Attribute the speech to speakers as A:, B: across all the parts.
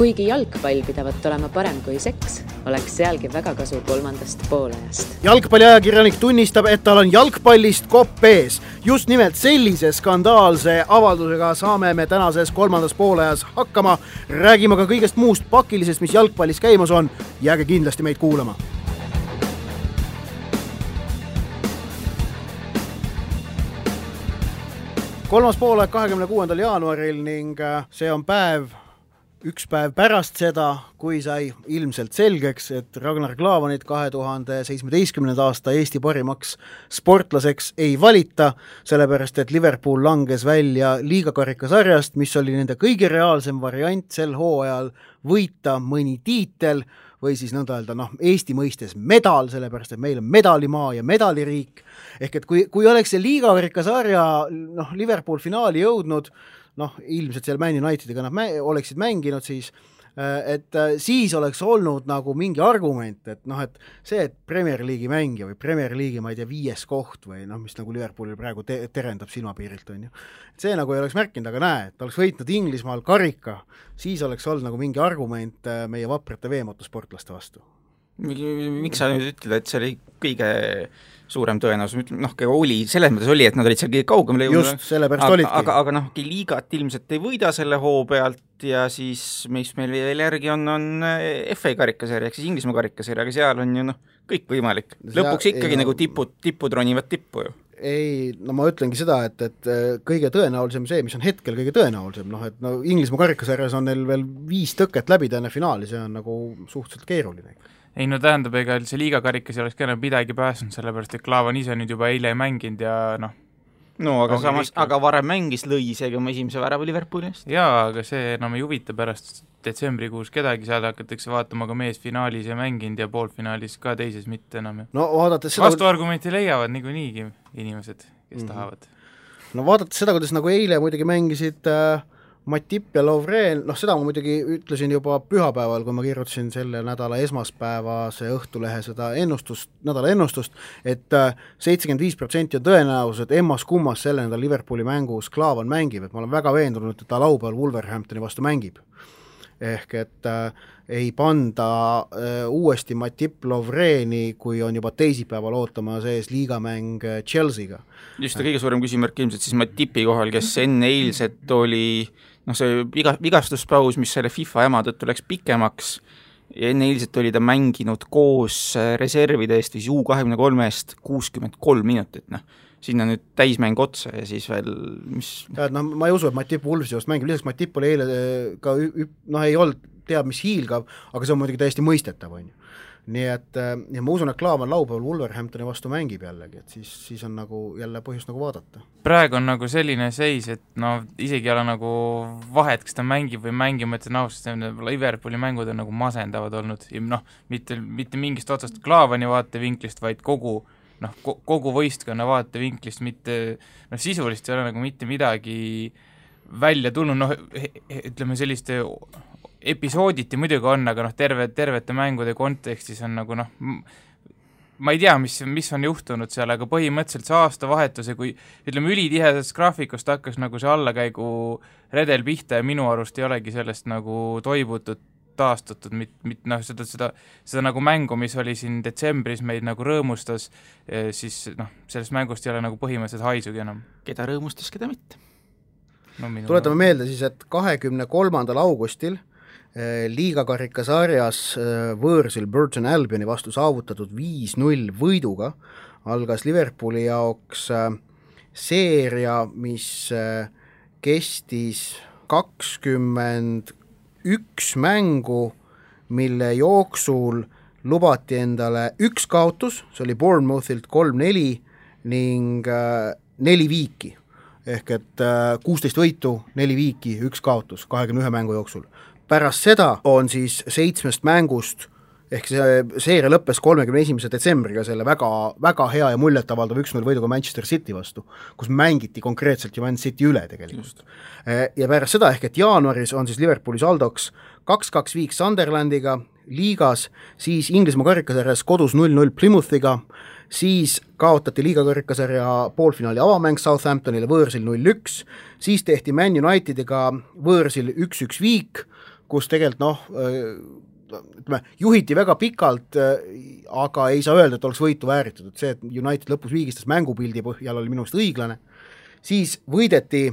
A: Kuigi jalgpall pidavat olema parem kui seks, oleks sealgi väga kasu kolmandast poolajast.
B: Jalgpalliajakirjanik tunnistab, et tal on jalgpallist kopp ees. Just nimelt sellise skandaalse avaldusega saame me tänases kolmandas poolajas hakkama. Räägime ka kõigest muust pakilisest, mis jalgpallis käimas on. Jääge kindlasti meid kuulama. Kolmas poolaeg 26. jaanuaril ning see on üks päev pärast seda, kui sai ilmselt selgeks, et Ragnar Klavanit 2017. aasta Eesti parimaks sportlaseks ei valita, sellepärast et Liverpool langes välja liigakarikasarjast, mis oli nende kõige reaalsem variant sel hooajal võita mõni tiitel või siis nõnda öelda, Eesti mõistes medal, sellepärast et meil on medalimaa ja medaliriik. Ehk et kui oleks see liigakarikasarja Liverpool finaali jõudnud, ilmselt seal Man Unitediga nad oleksid mänginud siis oleks olnud nagu mingi argument, et see, et Premier League'i mängija või Premier League'i, ma ei tea, 5. koht või mis nagu Liverpoolil praegu terendab silmapiirilt, on ju. See nagu ei oleks märkinud, aga näe, et oleks võitnud Inglismaal karika, siis oleks olnud nagu mingi argument meie vaprate veemotosportlaste vastu.
C: Miks sa nüüd ütled, et see oli kõige suurem tõenäosus, oli, selles mõttes oli, et nad olid seal kõige kaugemale jõudnud.
B: Just, sellepärast olidki.
C: Aga liigat ilmselt ei võida selle hoo pealt ja siis, mis meil veel järgi on FA karikasarja, ehk siis Inglismaa karikasarja, aga seal on ju kõik võimalik. Lõpuks ikkagi nagu tipud ronivad tippu ju.
B: Ei, ma ütlengi seda, et kõige tõenäolisem see, mis on hetkel kõige tõenäolisem, Inglismaa karikasarjas on neil veel 5 tõket läbi täna finaali, see on nagu suhteliselt keeruline.
D: Ei, tähendab, ega see liigakarikas ei oleks ka midagi pääsnud, sellepärast, et Klaavan ise nüüd juba eile ei mänginud ja
C: aga samas, aga varem mängis lõi isegi oma esimese värava Liverpooli eest.
D: Jaa, aga see enam ei huvita pärast detsembrikuus kedagi, seal hakatakse vaatama ka mees finaalis ja mänginud ja poolfinaalis ka teises mitte enam. Vastuargumenti leiavad niikuinii inimesed, kes tahavad.
B: Vaadates seda, kuidas nagu eile muidugi mängisid Matip ja Lovren, seda ma muidugi ütlesin juba pühapäeval, kui ma kirjutasin selle nädala esmaspäevase Õhtulehe seda nädala ennustust, et 75% on tõenäosus, et emmas kummas selle nädal Liverpooli mängus Klaavan mängib, et ma olen väga veendunud, et ta laupäeval Wolverhamptoni vastu mängib. Ehk et ei panda uuesti Matip Lovreni, kui on juba teisipäeval ootama sees liigamäng Chelsea'ga.
C: Just kõige suurem küsimärk ilmselt siis Matipi kohal, kes enne eilset oli see vigastuspaus, mis selle FIFA jama tõttu läks pikemaks ja enne eilset oli ta mänginud koos reservide eest või U23-st 63 minutit, sinna nüüd täismäng otsa ja siis veel
B: ma ei usu, et Matip Wolvesi just mängib, lisaks Matip oli eile ka ei olnud teab mis hiilgav, aga see on muidugi täiesti mõistetav, on ju. Nii et ja ma usun, et Klaavan laupäeval Wolverhamptoni vastu mängib jällegi, et siis on nagu jälle põhjust nagu vaadata.
D: Praegu on nagu selline seis, et isegi ei ole nagu vahet, kas ta mängib või mängib, et Liverpooli mängud on nagu masendavad olnud ja mitte mingist otsast Klaavani vaatevinklist, vaid kogu võistkonna vaatevinklist, mitte sisulist ei ole nagu mitte midagi välja tulnud, ütleme selliste episooditi muidugi on, aga tervete mängude kontekstis on nagu ma ei tea, mis on juhtunud seal, aga põhimõtteliselt see aastavahetuse, kui ütleme ülitihedast graafikust hakkas nagu see allakäigu redel pihta ja minu arust ei olegi sellest nagu toibutud, taastatud, seda nagu mängu, mis oli siin detsembris meid nagu rõõmustas, siis sellest mängust ei ole nagu põhimõtteliselt haisugi enam.
C: Keda rõõmustas, keda mitte?
B: Tuletame meelde siis, et 23. augustil liigakarikasarjas võõrsil Burton Albioni vastu saavutatud 5-0 võiduga algas Liverpooli jaoks seeria, mis kestis 21 mängu, mille jooksul lubati endale 1 kaotus, see oli Bournemouthilt 3-4 ning 4 viiki. Ehk et 16 võitu, 4 viiki, 1 kaotus 21 mängu jooksul. Pärast seda on siis 7 mängust, ehk see seeria lõppes 31. detsembriga selle väga, väga hea ja muljetavaldav 1-0 võiduga Manchester City vastu, kus mängiti konkreetselt ju Man City üle tegelikult. Ja pärast seda, ehk et jaanuaris on siis Liverpooli saldoks 2-2 viik Sunderlandiga liigas, siis Inglismaa karikasarjas kodus 0-0 Plymouthiga, siis kaotati liigakarikasarja poolfinaali avamäng Southamptonile võõrsil 0-1, siis tehti Man Unitediga võõrsil 1-1 viik, kus tegelikult ütleme, juhiti väga pikalt, aga ei saa öelda, et oleks võitu vääritud, et see, et United lõpus viigistas mängupildi põhjal oli minu arust õiglane, siis võideti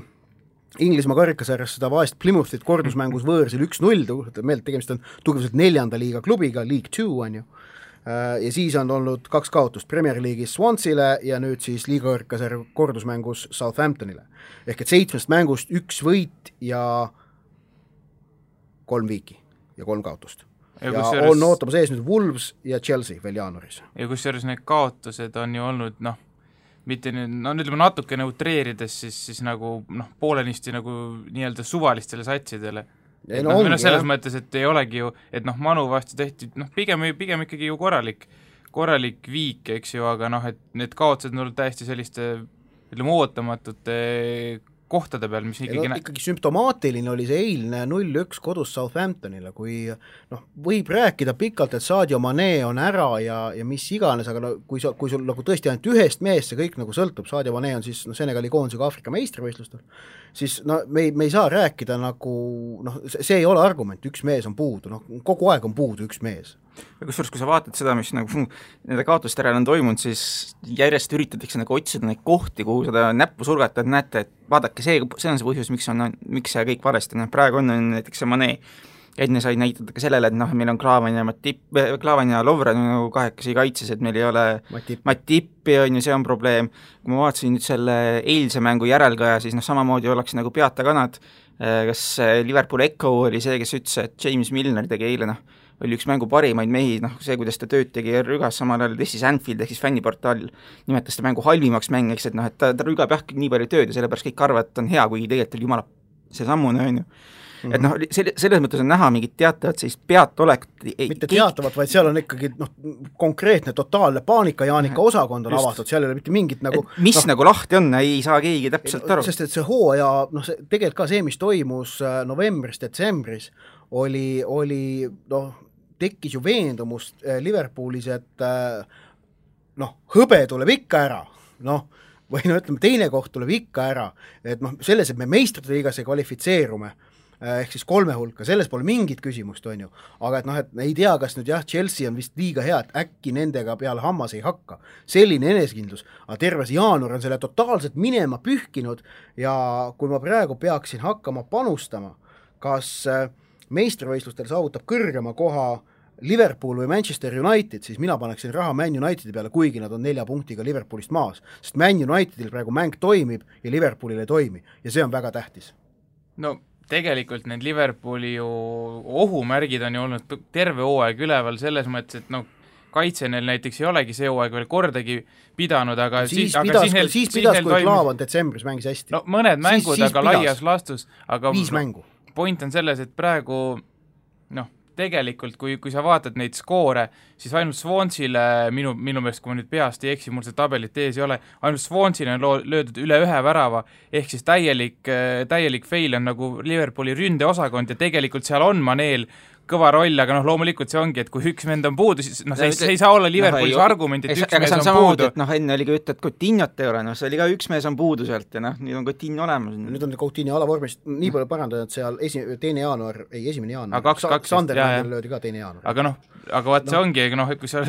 B: Inglismaa karikasarjas seda vaest Plymouthit kordusmängus võõrsil 1-0, tegemist on tugevuselt 4. liiga klubiga, League 2 on ju, ja siis on olnud 2 kaotust Premier League'is Swansile ja nüüd siis liiga karikasarja kordusmängus Southamptonile. Ehk et 7 mängust 1 võit ja 3 viiki ja 3 kaotust. Ja on ootamas ees nüüd Wolves ja Chelsea veel jaanuaris.
D: Ja kusjuures need kaotused on ju olnud, mitte nüüd, ütleme natuke neutreerides, siis nagu poolenisti nagu nii-öelda suvalistele satsidele. Selles mõttes, et ei olegi ju, et Manu vastu tehti, pigem ikkagi ju korralik viik, eks ju, aga et need kaotused on olnud täiesti selliste, ütleme, ootamatute kohtade peal, mis
B: ikkagi sümptomaatiline oli see eilne 0-1 kodus Southamptonile, kui võib rääkida pikalt, et Sadio Mane on ära ja mis iganes, aga kui sul nagu tõesti ainult ühest meest see kõik nagu sõltub, Sadio Mane on siis Senegali koondisega Aafrika meistrivõistlustel, siis me ei saa rääkida nagu, see ei ole argument, üks mees on puudu, kogu aeg on puudu üks mees.
C: Ja kusjuures, kui sa vaatad seda, mis nagu nende kaotuste järel on toimunud, siis järjest üritatakse nagu otsida neid kohti, kuhu seda näppu surgata, et näete, et vaadake, see on see põhjus, miks see kõik valesti, praegu on näiteks see Mane, enne sai näitada ka sellele, et meil on Klaavan ja Lovren nagu kahekesi kaitses, et meil ei ole Matippi, on ju, see on probleem. Kui ma vaatasin nüüd selle eilse mängu järelkaja, siis samamoodi oleks nagu peata kanad, kas Liverpool Echo oli see, kes ütles, et James Milner tegi eile, oli üks mängu parimaid mehi, see, kuidas ta tööd tegi rügas, samal ajal tõstis Anfield ehk siis fänniportaal nimetas ta mängu halvimaks mängiks, et ta rügab jah nii palju tööd ja sellepärast kõik arvavad, et on hea, kuigi tegelikult oli jumala see sammune, on ju. Et selles mõttes on näha mingit teatavat sellist peatolekut.
B: Mitte teatavat, vaid seal on ikkagi konkreetne totaalne paanika Jaanika osakond on avatud, seal ei ole mitte mingit nagu
C: mis nagu lahti on, ei saa keegi täpselt aru.
B: Sest et see hooaja, tegelikult ka see, mis toimus novembris, detsembris, oli tekkis ju veendumust Liverpoolis, et hõbe tuleb ikka ära, või ütleme, teine koht tuleb ikka ära, et selles, et me meistrite liigas ei kvalifitseerume, ehk siis 3 hulka, selles pole mingit küsimust, on ju, aga et ei tea, kas nüüd Chelsea on vist liiga hea, et äkki nendega peale hammas ei hakka, selline enesekindlus, aga terves jaanuar on selle totaalselt minema pühkinud ja kui ma praegu peaksin hakkama panustama, kas meistrivõistlustel saavutab kõrgema koha Liverpool või Manchester United, siis mina paneksin raha Man Unitedi peale, kuigi nad on 4 punktiga Liverpoolist maas, sest Man Unitedil praegu mäng toimib ja Liverpoolil ei toimi ja see on väga tähtis.
D: Tegelikult need Liverpooli ju ohumärgid on ju olnud terve hooaeg üleval selles mõttes, et kaitse neil näiteks ei olegi see hooaeg veel kordagi pidanud, aga
B: siis pidas, kui Klaavan detsembris mängis hästi.
D: Mõned mängud, aga laias lastus, aga
B: 5 mängu.
D: Point on selles, et praegu tegelikult, kui sa vaatad neid skoore, siis ainult Swansile, minu meelest, kui ma nüüd peast ei eksi, mul see tabelit ees ei ole, ainult Swansile on löödud üle 1 värava, ehk siis täielik fail on nagu Liverpooli ründeosakond ja tegelikult seal on Maneel kõva roll, aga loomulikult see ongi, et kui üks vend on puudu, siis see ei saa olla Liverpoolis argument, et üks mees on puudu.
C: Enne oli ka ütled, et Coutinhot ei ole, see oli ka üks mees on puudu sealt ja nüüd on Coutinho olemas.
B: Nüüd on Coutinho alavormis, nii palju parandanud, et seal 1. jaanuar,
D: aga 2,
B: Sunderlandil löödi ka 2. jaanuar.
D: Aga vaat see ongi, kui sa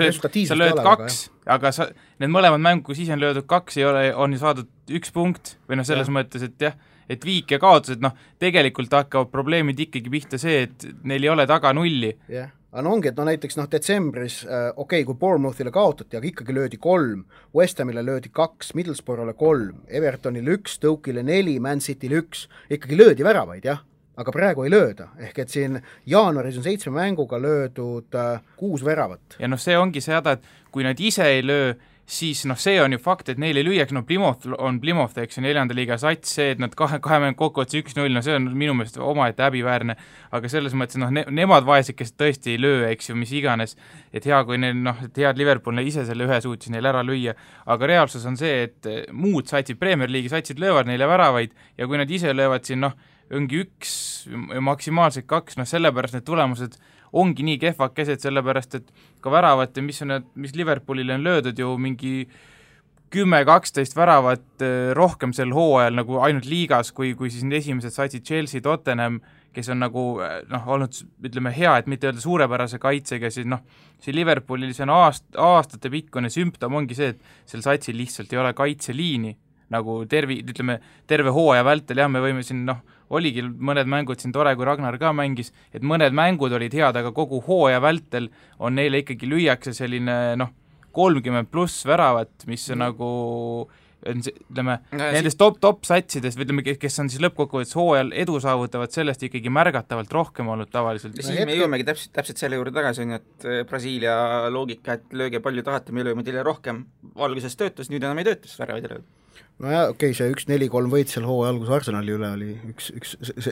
D: lööd 2, aga need mõlemad mängu, kui siis on löödud 2, on ju saadud 1 punkt või selles mõttes, et jah, et viik ja kaotused, tegelikult hakkavad probleemid ikkagi pihta see, et neil ei ole taga 0.
B: Jah, aga ongi, et näiteks detsembris, kui Bournemouthile kaotati, aga ikkagi löödi 3, West Hamile löödi 2, Middlesbrough'le 3, Evertonile 1, Stoke'ile 4, Man City'le 1, ikkagi löödi väravaid, jah, aga praegu ei lööda, ehk et siin jaanuaris on 7 mänguga löödud 6 väravat.
D: Ja see ongi see häda, et kui nad ise ei löö, siis see on ju fakt, et neil ei lüüaks, Plymouth, eks ju, 4. liiga sats, see, et nad kahe mängu kokkuvõttes 1-0, see on minu meelest omaette häbiväärne, aga selles mõttes, nemad vaesed, kes tõesti ei löö, eks ju, mis iganes, et hea, kui neil, et head Liverpool ise selle ühe suutis neil ära lüüa, aga reaalsus on see, et muud satsid, Premier League'i satsid löövad neile väravaid ja kui nad ise löövad siin, ongi 1, maksimaalselt 2, sellepärast need tulemused ongi nii kehvakesed, sellepärast et ka väravat ja mis Liverpoolile on löödud ju mingi 10-12 väravat rohkem sel hooajal nagu ainult liigas, kui siis need esimesed satsid Chelsea, Tottenham, kes on nagu olnud, ütleme, hea, et mitte öelda suurepärase kaitsega, siis see Liverpoolil see on aastate pikkune sümptom ongi see, et sel satsil lihtsalt ei ole kaitseliini, nagu terve hooaja vältel, jah, me võime siin, oligi mõned mängud siin tore, kui Ragnar ka mängis, et mõned mängud olid head, aga kogu hooaja vältel on neile ikkagi lüüakse selline 30+ väravat, mis on nagu ütleme, nendest top satsides, ütleme, kes on siis lõppkokkuvõttes hooajal edu saavutavad, sellest ikkagi märgatavalt rohkem olnud tavaliselt.
C: Siis me jõuamegi täpselt selle juurde tagasi, et Brasiilia loogika, et lööge palju tahate, me lööme teile rohkem, valguses töötas, nüüd enam ei töötas väravaid ei lööd.
B: Nojah, okei, see 1-4-3 võit seal hooaja algus Arsenali üle oli üks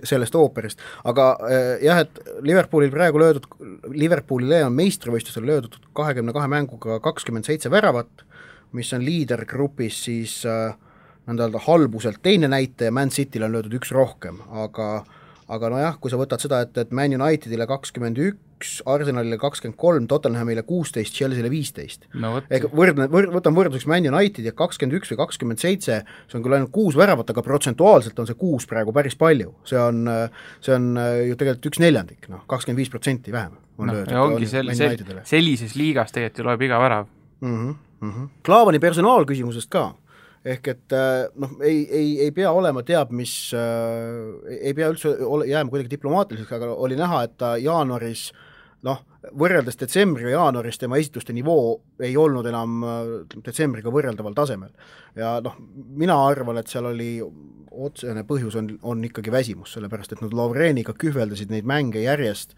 B: sellest ooperist, aga jah, et Liverpoolile on meistrivõistlusel löödud 22 mänguga 27 väravat, mis on liidergrupis siis nõnda halbuselt teine näitaja, Man City'l on löödud üks rohkem, aga nojah, kui sa võtad seda, et Man Unitedile 21, Arsenalile 23, Tottenhamile 16, Chelsea'le 15. Võtan võrdluseks Man Unitedi 21 või 27, see on küll ainult 6 väravat, aga protsentuaalselt on see 6 praegu päris palju. See on ju tegelikult 1/4, 25% vähem on löödud.
D: Ja ongi sellises liigas tegelikult ju loeb iga värav.
B: Klaavani personaalküsimusest ka, ehk et ei pea olema mis, ei pea üldse jääma kuidagi diplomaatiliseks, aga oli näha, et ta jaanuaris, võrreldes detsembri ja jaanuaris tema esituste nivoo ei olnud enam detsembriga võrreldaval tasemel. Ja mina arvan, et seal oli otsene põhjus on ikkagi väsimus, sellepärast et nad Lovreniga kühveldasid neid mänge järjest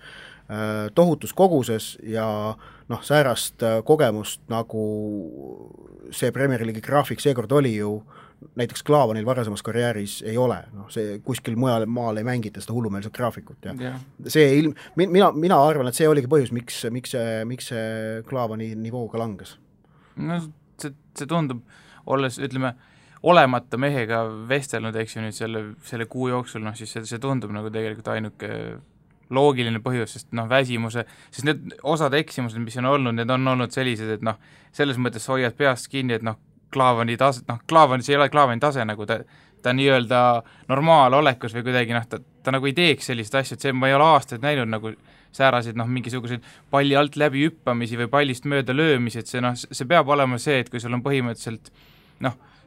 B: tohutus koguses ja säärast kogemust, nagu see Premier League'i graafik seekord oli ju, näiteks Klaavanil varasemas karjääris ei ole, see kuskil mujal maal ei mängita seda hullumeelset graafikut ja see mina arvan, et see oligi põhjus, miks see Klaavani nivooga langes.
D: See tundub, olles, ütleme, olemata mehega vestelnud, eks ju nüüd selle kuu jooksul, siis see tundub nagu tegelikult ainuke loogiline põhjus, sest väsimuse, sest need osad eksimused, mis on olnud, need on olnud sellised, et selles mõttes hoiad peast kinni, et Klaavani tase, see ei ole Klaavani tase, nagu ta nii-öelda normaalolekus või kuidagi, ta nagu ei teeks sellist asja, et see ma ei ole aastaid näinud nagu säärasid, mingisuguseid palli alt läbi hüppamisi või pallist mööda löömisi, et see peab olema see, et kui sul on põhimõtteliselt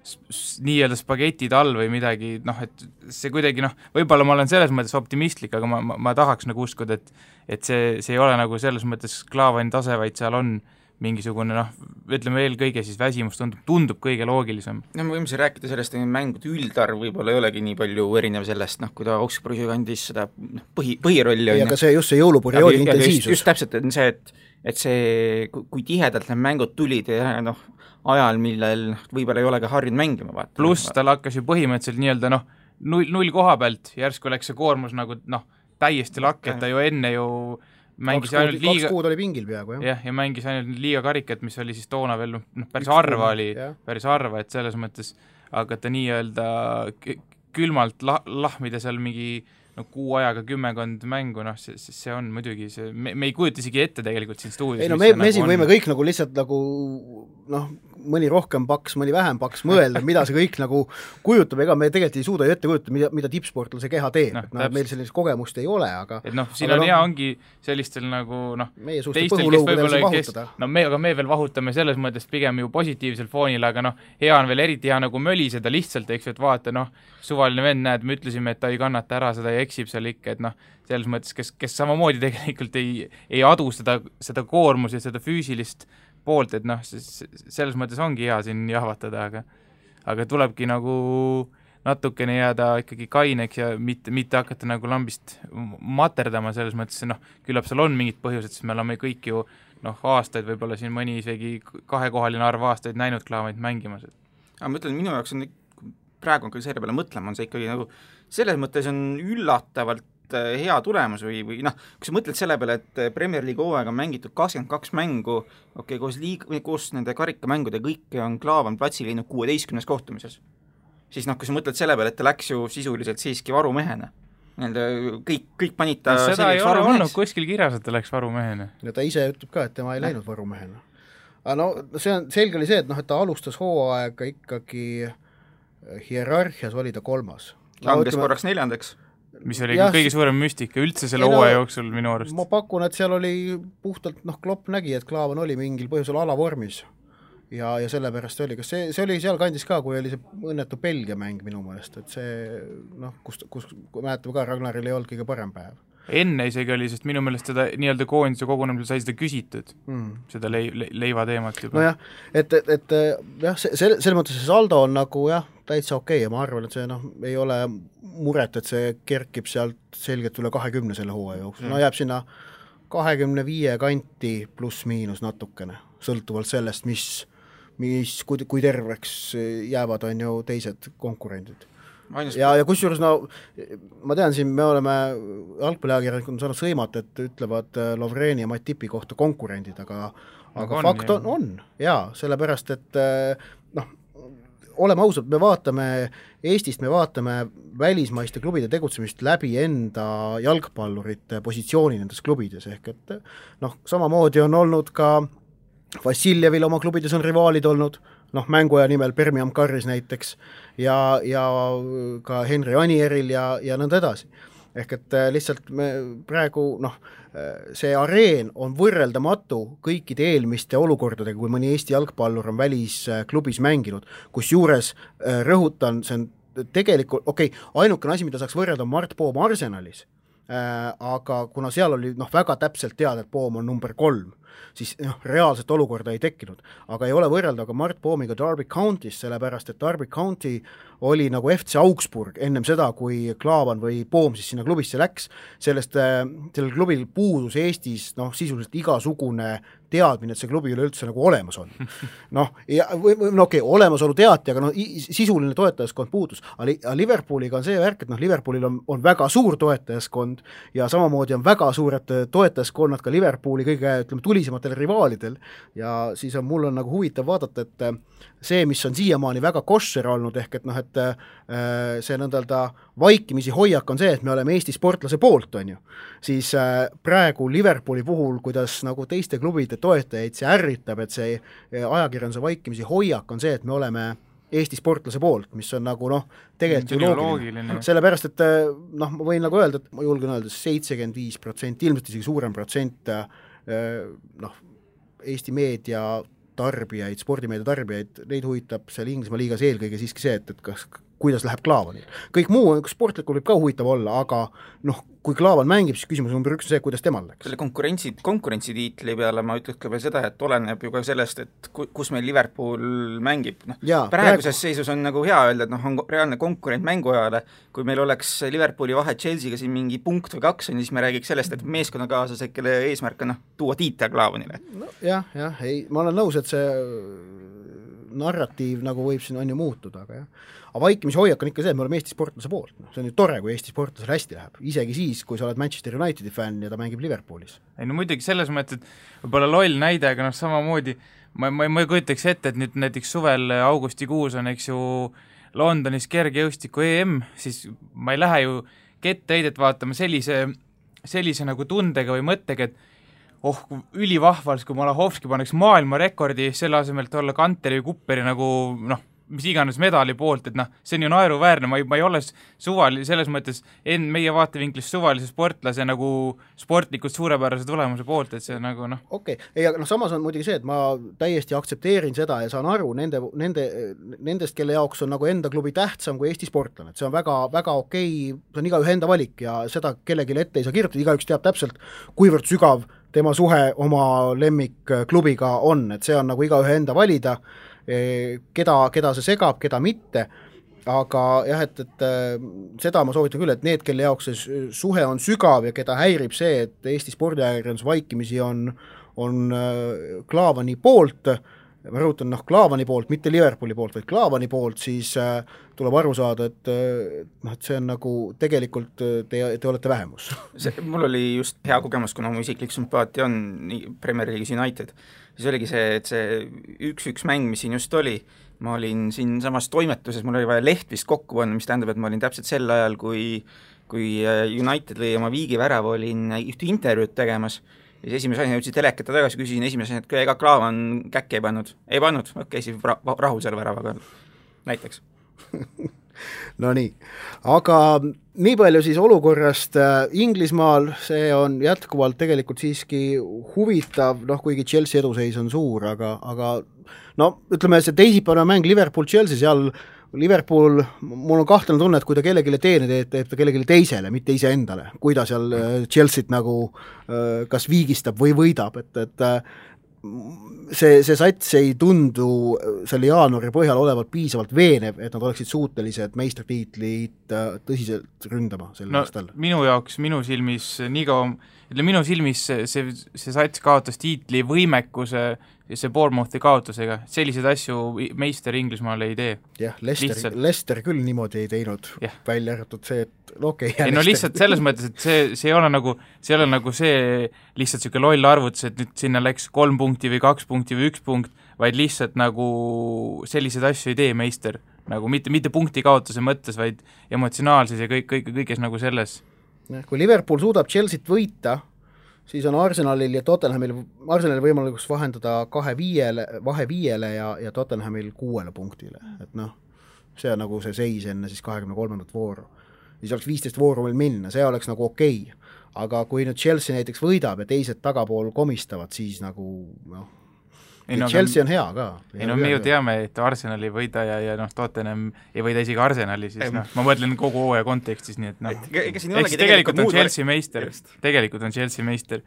D: nii-öelda spagetid all või midagi, et see kuidagi, võib-olla ma olen selles mõttes optimistlik, aga ma tahaks nagu uskuda, et see ei ole nagu selles mõttes Klaavani tase, vaid seal on mingisugune, ütleme eelkõige siis väsimus tundub kõige loogilisem.
C: Me võime siin rääkida sellest, et mängude üldarv võib-olla ei olegi nii palju erinev sellest, kui ta Augsburgi kandis seda põhirolli.
B: Ja ka see just see jõuluperioodi intensiivsus.
C: Just täpselt, et see, et see, kui tihedalt need mängud tulid ja ajal, millel võib-olla ei ole ka harjunud mängima.
D: Pluss tal hakkas ju põhimõtteliselt nii-öelda null koha pealt, järsku läks see koormus nagu täiesti lakk, et ta ju enne ju mängis ainult liiga...
B: 2 kuud oli pingil peaaegu,
D: jah. Ja mängis ainult liiga karikat, mis oli siis toona veel päris harva, et selles mõttes hakata nii-öelda külmalt lahmida seal mingi kuu ajaga 10 mängu, see on muidugi see, me ei kujuta isegi ette tegelikult siin stuudios.
B: Ei me siin võime kõik nagu lihtsalt nagu mõni rohkem paks, mõni vähem paks mõelda, mida see kõik nagu kujutab, ega me tegelikult ei suuda ju ette kujutada, mida tippsportlal see keha teeb, meil sellist kogemust ei ole, aga
D: et siin on hea ongi sellistel nagu
B: meie suuste põhulõugudel see vahutada.
D: Aga me veel vahutame selles mõttes pigem ju positiivsel foonil, aga hea on veel eriti hea nagu möliseda lihtsalt, eks ju, et vaata, suvaline vend, näed, me ütlesime, et ta ei kannata ära seda ja eksib seal ikka, et selles mõttes, kes samamoodi tegelikult ei adu seda koormus ja seda füüsilist poolt, et selles mõttes ongi hea siin jahvatada, aga tulebki nagu natukene jääda ikkagi kaineks ja mitte hakata nagu lambist materdama selles mõttes, küllap seal on mingid põhjused, sest me oleme kõik ju aastaid, võib-olla siin mõni isegi 2-kohaline arv aastaid näinud Klaavanit mängimas.
C: Aga ma ütlen, minu jaoks on praegu on küll selle peale mõtlema, on see ikkagi nagu selles mõttes on üllatavalt hea tulemus või kui sa mõtled selle peale, et Premier League hooaega on mängitud 22 mängu, koos nende karikamängude kõike on Klaavan platsil läinud 16 kohtumises. Siis kui sa mõtled selle peale, et ta läks ju sisuliselt siiski varumehena. Kõik panid ta
D: seda ei ole olnud kuskil kirjas, et ta läks varumehena.
B: Ja ta ise ütleb ka, et tema ei läinud varumehena. Aga see on selge oli see, et ta alustas hooaega ikkagi hierarhias oli ta 3.
C: Langes korraks 4.
D: mis oli kõige suurem müstika üldse selle hooaja jooksul minu arust.
B: Ma pakun, et seal oli puhtalt, Klopp nägi, et Klaavan oli mingil põhjusel alavormis ja sellepärast oli, kas see oli seal kandis ka, kui oli see õnnetu Belgia mäng minu meelest, et see, kus mäletame ka, Ragnaril ei olnud kõige parem päev.
D: Enne isegi oli, sest minu meelest seda nii-öelda koondise kogunemisel sai seda küsitud, seda leiva teemat juba.
B: Nojah, et jah, selles mõttes see saldo on nagu jah, täitsa okei ja ma arvan, et see ei ole muret, et see kerkib sealt selgelt üle 20 selle hooaja jooksul. Jääb sinna 25 kanti pluss miinus natukene, sõltuvalt sellest, kui terveks jäävad on ju teised konkurendid. Ja kusjuures ma tean siin, me oleme jalgpalliajakirjanikud on saanud sõimat, et ütlevad Lovreni ja Matipi kohta konkurendid, aga fakt on jaa, sellepärast, et oleme ausad, me vaatame Eestist, me vaatame välismaiste klubide tegutsemist läbi enda jalgpallurite positsiooni nendes klubides, ehk et samamoodi on olnud ka Vassiljevil oma klubides on rivaalid olnud, mänguaja nimel Birmingham Carris näiteks ja ka Henry Anieril ja nõnda edasi. Ehk et lihtsalt me praegu, see areen on võrreldamatu kõikide eelmiste olukordadega, kui mõni Eesti jalgpallur on välisklubis mänginud, kus juures rõhutan, see on tegelikult, ainukene asi, mida saaks võrrelda on Mart Poom Arsenalis, aga kuna seal oli väga täpselt teada, et Poom on number 3, siis reaalset olukorda ei tekkinud. Aga ei ole võrrelda ka Mart Poomiga Derby County's, sellepärast, et Derby County oli nagu FC Augsburg ennem seda, kui Klaavan või Poom siis sinna klubisse läks. Sellel klubil puudus Eestis sisuliselt igasugune teadmine, et see klubi üleüldse nagu olemas on. Olemasolu teati, aga sisuline toetajaskond puudus. Aga Liverpooliga on see värk, et Liverpoolil on väga suur toetajaskond ja samamoodi on väga suured toetajaskonnad ka Liverpooli kõige tulisematele rivaalidel ja siis mul on nagu huvitav vaadata, et see, mis on siiamaani väga koššer olnud, ehk et see nõndalda vaikimisi hoiak on see, et me oleme Eesti sportlase poolt, on ju. Siis praegu Liverpooli puhul, kuidas nagu teiste klubide toetajaid see ärritab, et see ajakirjanduse vaikimisi hoiak on see, et me oleme Eesti sportlase poolt, mis on nagu tegelikult ju loogiline. Sellepärast, et ma võin nagu öelda, et ma julgen öelda 75%, ilmselt isegi suurem protsent Eesti meedia tarbijaid, spordimeedia tarbijaid, neid huvitab seal Inglismaa liigas eelkõige siiski see, et kuidas läheb Klaavanil. Kõik muu sportlikul võib ka huvitav olla, aga kui Klaavan mängib, siis küsimus number 1 on see, kuidas temal läks.
C: Selle konkurentsitiitli peale ma ütleks ka veel seda, et oleneb ju ka sellest, et kus meil Liverpool mängib. Praeguses seisus on nagu hea öelda, et on reaalne konkurent mänguajale. Kui meil oleks Liverpooli vahe Chelsea'ga siin mingi punkt või 2, siis me räägiks sellest, et meeskonnakaaslased, kelle eesmärk on tuua tiitel Klaavanile.
B: Ma olen nõus, et see narratiiv nagu võib siin on ju muutuda, aga vaikimise hoiak on ikka see, et me oleme Eesti sportlase poolt. See on ju tore, kui Eesti sportlasel hästi läheb. Isegi siis, kui sa oled Manchester Unitedi fänn ja ta mängib Liverpoolis.
D: Muidugi selles mõttes, et võib-olla loll näide, aga samamoodi ma ei kujutaks ette, et nüüd näiteks suvel augustikuus on, eks ju, Londonis kergejõustiku EM, siis ma ei lähe ju ketteheidet vaatama sellise nagu tundega või mõttega, et ülivahvals, kui Malahovski paneks maailmarekordi selle asemelt olla Kanteri või Kupperi nagu mis iganes medali poolt, et see on ju naeruväärne, ma ei ole selles mõttes meie vaatevinklis suvalise sportlase nagu sportlikult suurepärase tulemuse poolt, et see nagu
B: aga samas on muidugi see, et ma täiesti aktsepteerin seda ja saan aru nendest, kelle jaoks on nagu enda klubi tähtsam kui Eesti sportlane, et see on väga, väga okei, see on igaühe enda valik ja seda kellelegi ette ei saa kirjutada, igaüks teab täpselt, kuivõrd sügav tema suhe oma lemmikklubiga on, et see on nagu igaühe enda valida, keda see segab, keda mitte, aga jah, et seda ma soovitan küll, et need, kelle jaoks see suhe on sügav ja keda häirib see, et Eesti spordiajakirjandus vaikimisi on Klaavani poolt, ma rõhutan Klaavani poolt, mitte Liverpooli poolt, vaid Klaavani poolt, siis tuleb aru saada, et see on nagu tegelikult te olete vähemus.
C: Mul oli just hea kogemus, kuna mu isiklik sümpaatia on Premier League'is United. Siis oligi see, et see 1-1 mäng, mis siin just oli, ma olin siin samas toimetuses, mul oli vaja leht vist kokku panna, mis tähendab, et ma olin täpselt sel ajal, kui United lõi oma viigivärava, olin ühte intervjuud tegemas. Ja siis esimese asjana jõudsin telekata tagasi, küsisin esimese asjana, et ega Klaavan käkke ei pannud. Ei pannud, siis rahul selle väravaga näiteks.
B: No nii, aga nii palju siis olukorrast Inglismaal, see on jätkuvalt tegelikult siiski huvitav, kuigi Chelsea eduseis on suur, aga no ütleme, see teisipäevane mäng Liverpool-Chelsea, seal Liverpool, mul on kahtlane tunne, et kui ta kellelegi teene teeb ta kellelegi teisele, mitte iseendale, kui ta seal Chelsea't nagu kas viigistab või võidab, et see sats ei tundu selle jaanuari põhjal olevat piisavalt veenev, et nad oleksid suutelised meistritiitlit tõsiselt ründama sel aastal.
D: Minu jaoks, minu silmis see sats kaotas tiitli võimekuse see Bournemouthi kaotusega, selliseid asju meister Inglismaal ei tee.
B: Jah, Leicester küll niimoodi ei teinud, välja arvatud see, et
D: ei no lihtsalt selles mõttes, et see ei ole nagu see lihtsalt selline loll arvutus, et nüüd sinna läks 3 punkti või 2 punkti või 1 punkt, vaid lihtsalt nagu selliseid asju ei tee meister, nagu mitte punkti kaotuse mõttes, vaid emotsionaalses ja kõiges nagu selles.
B: Kui Liverpool suudab Chelsea't võita, siis on Arsenalil ja Tottenhamil võimalikus vahendada 2-5 ja Tottenhamil 6 punktile, et see on nagu see seis enne siis 23. vooru. Siis oleks 15 vooru veel minna, see oleks nagu okei. Aga kui nüüd Chelsea näiteks võidab ja teised tagapool komistavad, siis nagu Chelsea on hea ka.
D: Me ju teame, et Arsenal ei võida ja Tottenham ei võida isegi Arsenali, siis ma mõtlen kogu hooaja kontekstis, nii et tegelikult on Chelsea meister, tegelikult on Chelsea meister.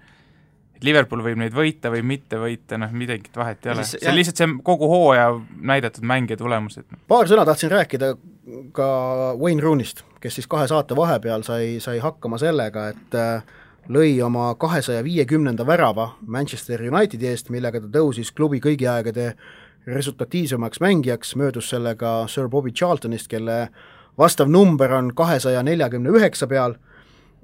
D: Liverpool võib neid võita või mitte võita, midagi vahet ei ole. See on lihtsalt see kogu hooaja näidatud mäng ja tulemused.
B: Paar sõna tahtsin rääkida ka Wayne Rooney'st, kes siis 2 saate vahepeal sai hakkama sellega, et lõi oma 250. värava Manchester Unitedi eest, millega ta tõusis klubi kõigi aegade resultatiivsemaks mängijaks, möödus sellega Sir Bobby Charltonist, kelle vastav number on 249 peal,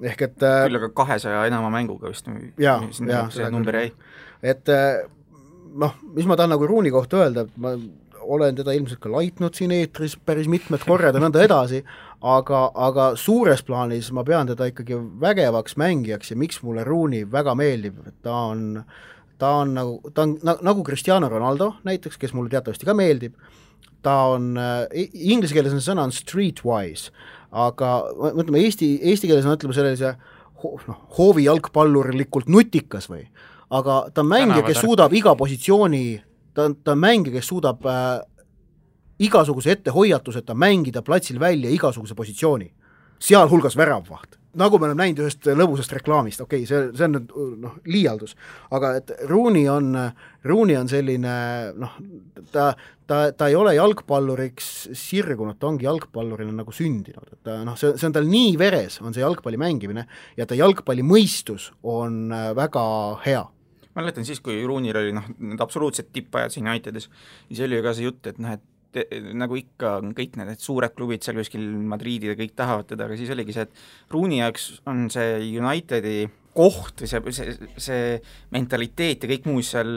B: ehk et
C: küll aga 200 enama mänguga vist see number jäi.
B: Et mis ma tahan nagu Rooney kohta öelda, et ma olen teda ilmselt ka laitnud siin eetris päris mitmed korrad ja nõnda edasi, aga suures plaanis ma pean teda ikkagi vägevaks mängijaks ja miks mulle Rooney väga meeldib, et ta on nagu Cristiano Ronaldo näiteks, kes mulle teatavasti ka meeldib, ta on, inglise keeles on sõna on streetwise, aga mõtleme eesti keeles on ütleme sellise hoovi jalgpallurlikult nutikas või, aga ta on mängija, kes suudab iga positsiooni ta on mängija, kes suudab igasuguse ettehoiatuseta mängida platsil välja igasuguse positsiooni, sealhulgas väravvaht. Nagu me oleme näinud ühest lõbusast reklaamist, okei, see on liialdus, aga et Rooney on selline, ta ei ole jalgpalluriks sirgunud, ta ongi jalgpallurina nagu sündinud, et see on tal nii veres, on see jalgpalli mängimine ja ta jalgpalli mõistus on väga hea.
C: Ma mäletan siis, kui Rooney'l oli need absoluutselt tippajad siin Unitedis, siis oli ju ka see jutt, et nagu ikka kõik need suured klubid seal kuskil Madridid ja kõik tahavad teda, aga siis oligi see, et Rooney jaoks on see Unitedi koht või see mentaliteet ja kõik muu seal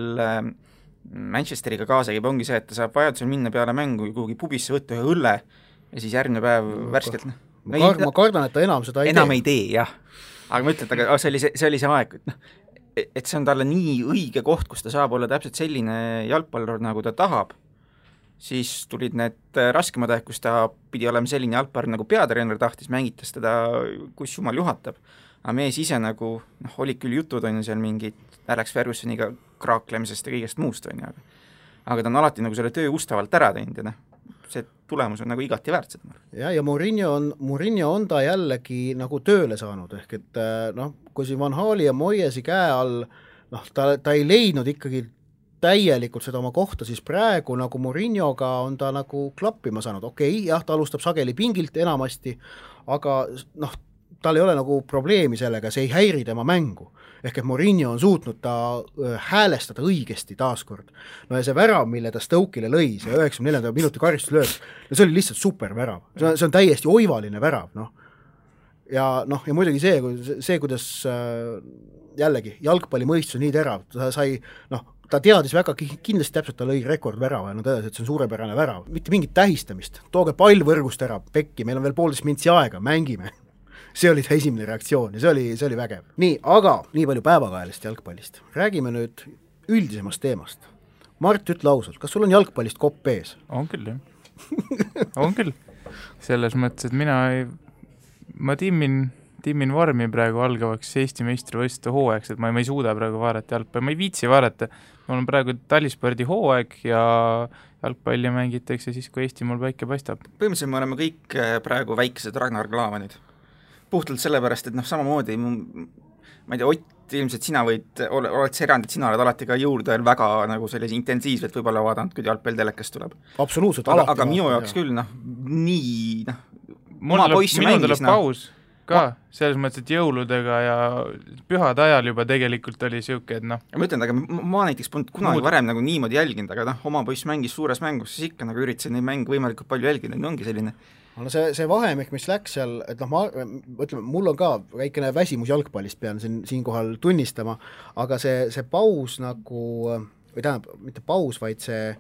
C: Manchesteriga kaasa käib, ongi see, et ta saab vajadusel minna peale mängu kuhugi pubisse võtta ühe õlle ja siis järgmine päev värskelt
B: ma kardan, et ta enam seda
C: ei tee, jah. Aga ma ütlen, aga see oli see aeg, et see on talle nii õige koht, kus ta saab olla täpselt selline jalgpallur, nagu ta tahab, siis tulid need raskemad aeg, kus ta pidi olema selline jalgpallur, nagu peatreener tahtis, mängitas teda, kus jumal juhatab. Aga mees ise nagu, oli küll jutud, on ju seal mingid Alex Fergusoniga kraaklemisest ja kõigest muust, on ju, aga ta on alati nagu selle töö ustavalt ära teinud ja see tulemus on nagu igati väärt seda.
B: Ja Mourinho on ta jällegi nagu tööle saanud, ehk et kui siin Van Hali ja Moyesi käe all, ta ei leidnud ikkagi täielikult seda oma kohta, siis praegu nagu Mourinhoga on ta nagu klappima saanud, okei, jah, ta alustab sageli pingilt enamasti, aga tal ei ole nagu probleemi sellega, see ei häiri tema mängu. Ehk et Mourinho on suutnud ta häälestada õigesti taaskord. Ja see värav, mille ta Stoke'ile lõi, see 94. minuti karistuslööb, see oli lihtsalt super värav. See on täiesti oivaline värav. Ja muidugi see, kuidas jällegi jalgpalli mõistus on nii terav, ta teadis väga kindlasti täpselt, ta lõi rekordvärava ja edasi, et see on suurepärane värav. Mitte mingit tähistamist, tooge pall võrgust ära, pekki, meil on veel 1,5 mintsi aega, mängime. See oli ta esimene reaktsioon ja see oli vägev. Nii, aga nii palju päevakajalist jalgpallist. Räägime nüüd üldisemast teemast. Mart, ütle ausalt, kas sul on jalgpallist kopp ees?
D: On küll, jah. On küll. selles mõttes, et ma timmin vormi praegu algavaks Eesti meistrivõistluste hooajaks, et ma ei suuda praegu vaadata jalgpalli, ma ei viitsi vaadata. Mul on praegu talispordi hooaeg ja jalgpalli mängitakse siis, kui Eesti mul päike paistab.
C: Põhimõtteliselt me oleme kõik praegu väiksed Ragnar Klavanid. Puhtalt sellepärast, et samamoodi, ma ei tea, Ott, ilmselt sina oled see erand, et sina oled alati ka jõulude väga nagu sellise intensiivselt võib-olla vaadanud, kui jalgpall telekast tuleb.
B: Absoluutselt,
C: aga minu jaoks küll, nii,
D: minul tuleb paus ka, selles mõttes, et jõuludega ja pühade ajal juba tegelikult oli siuke, et
C: Ma ütlen, aga ma näiteks polnud kunagi varem nagu niimoodi jälginud, aga oma poiss mängis suures mängus, siis ikka nagu üritasin neid mänge võimalikult palju jälgida, ongi selline.
B: See vahemik, mis läks seal, et ütleme, mul on ka väikene väsimus jalgpallist, pean siinkohal tunnistama, aga see paus nagu, või tähendab, mitte paus, vaid see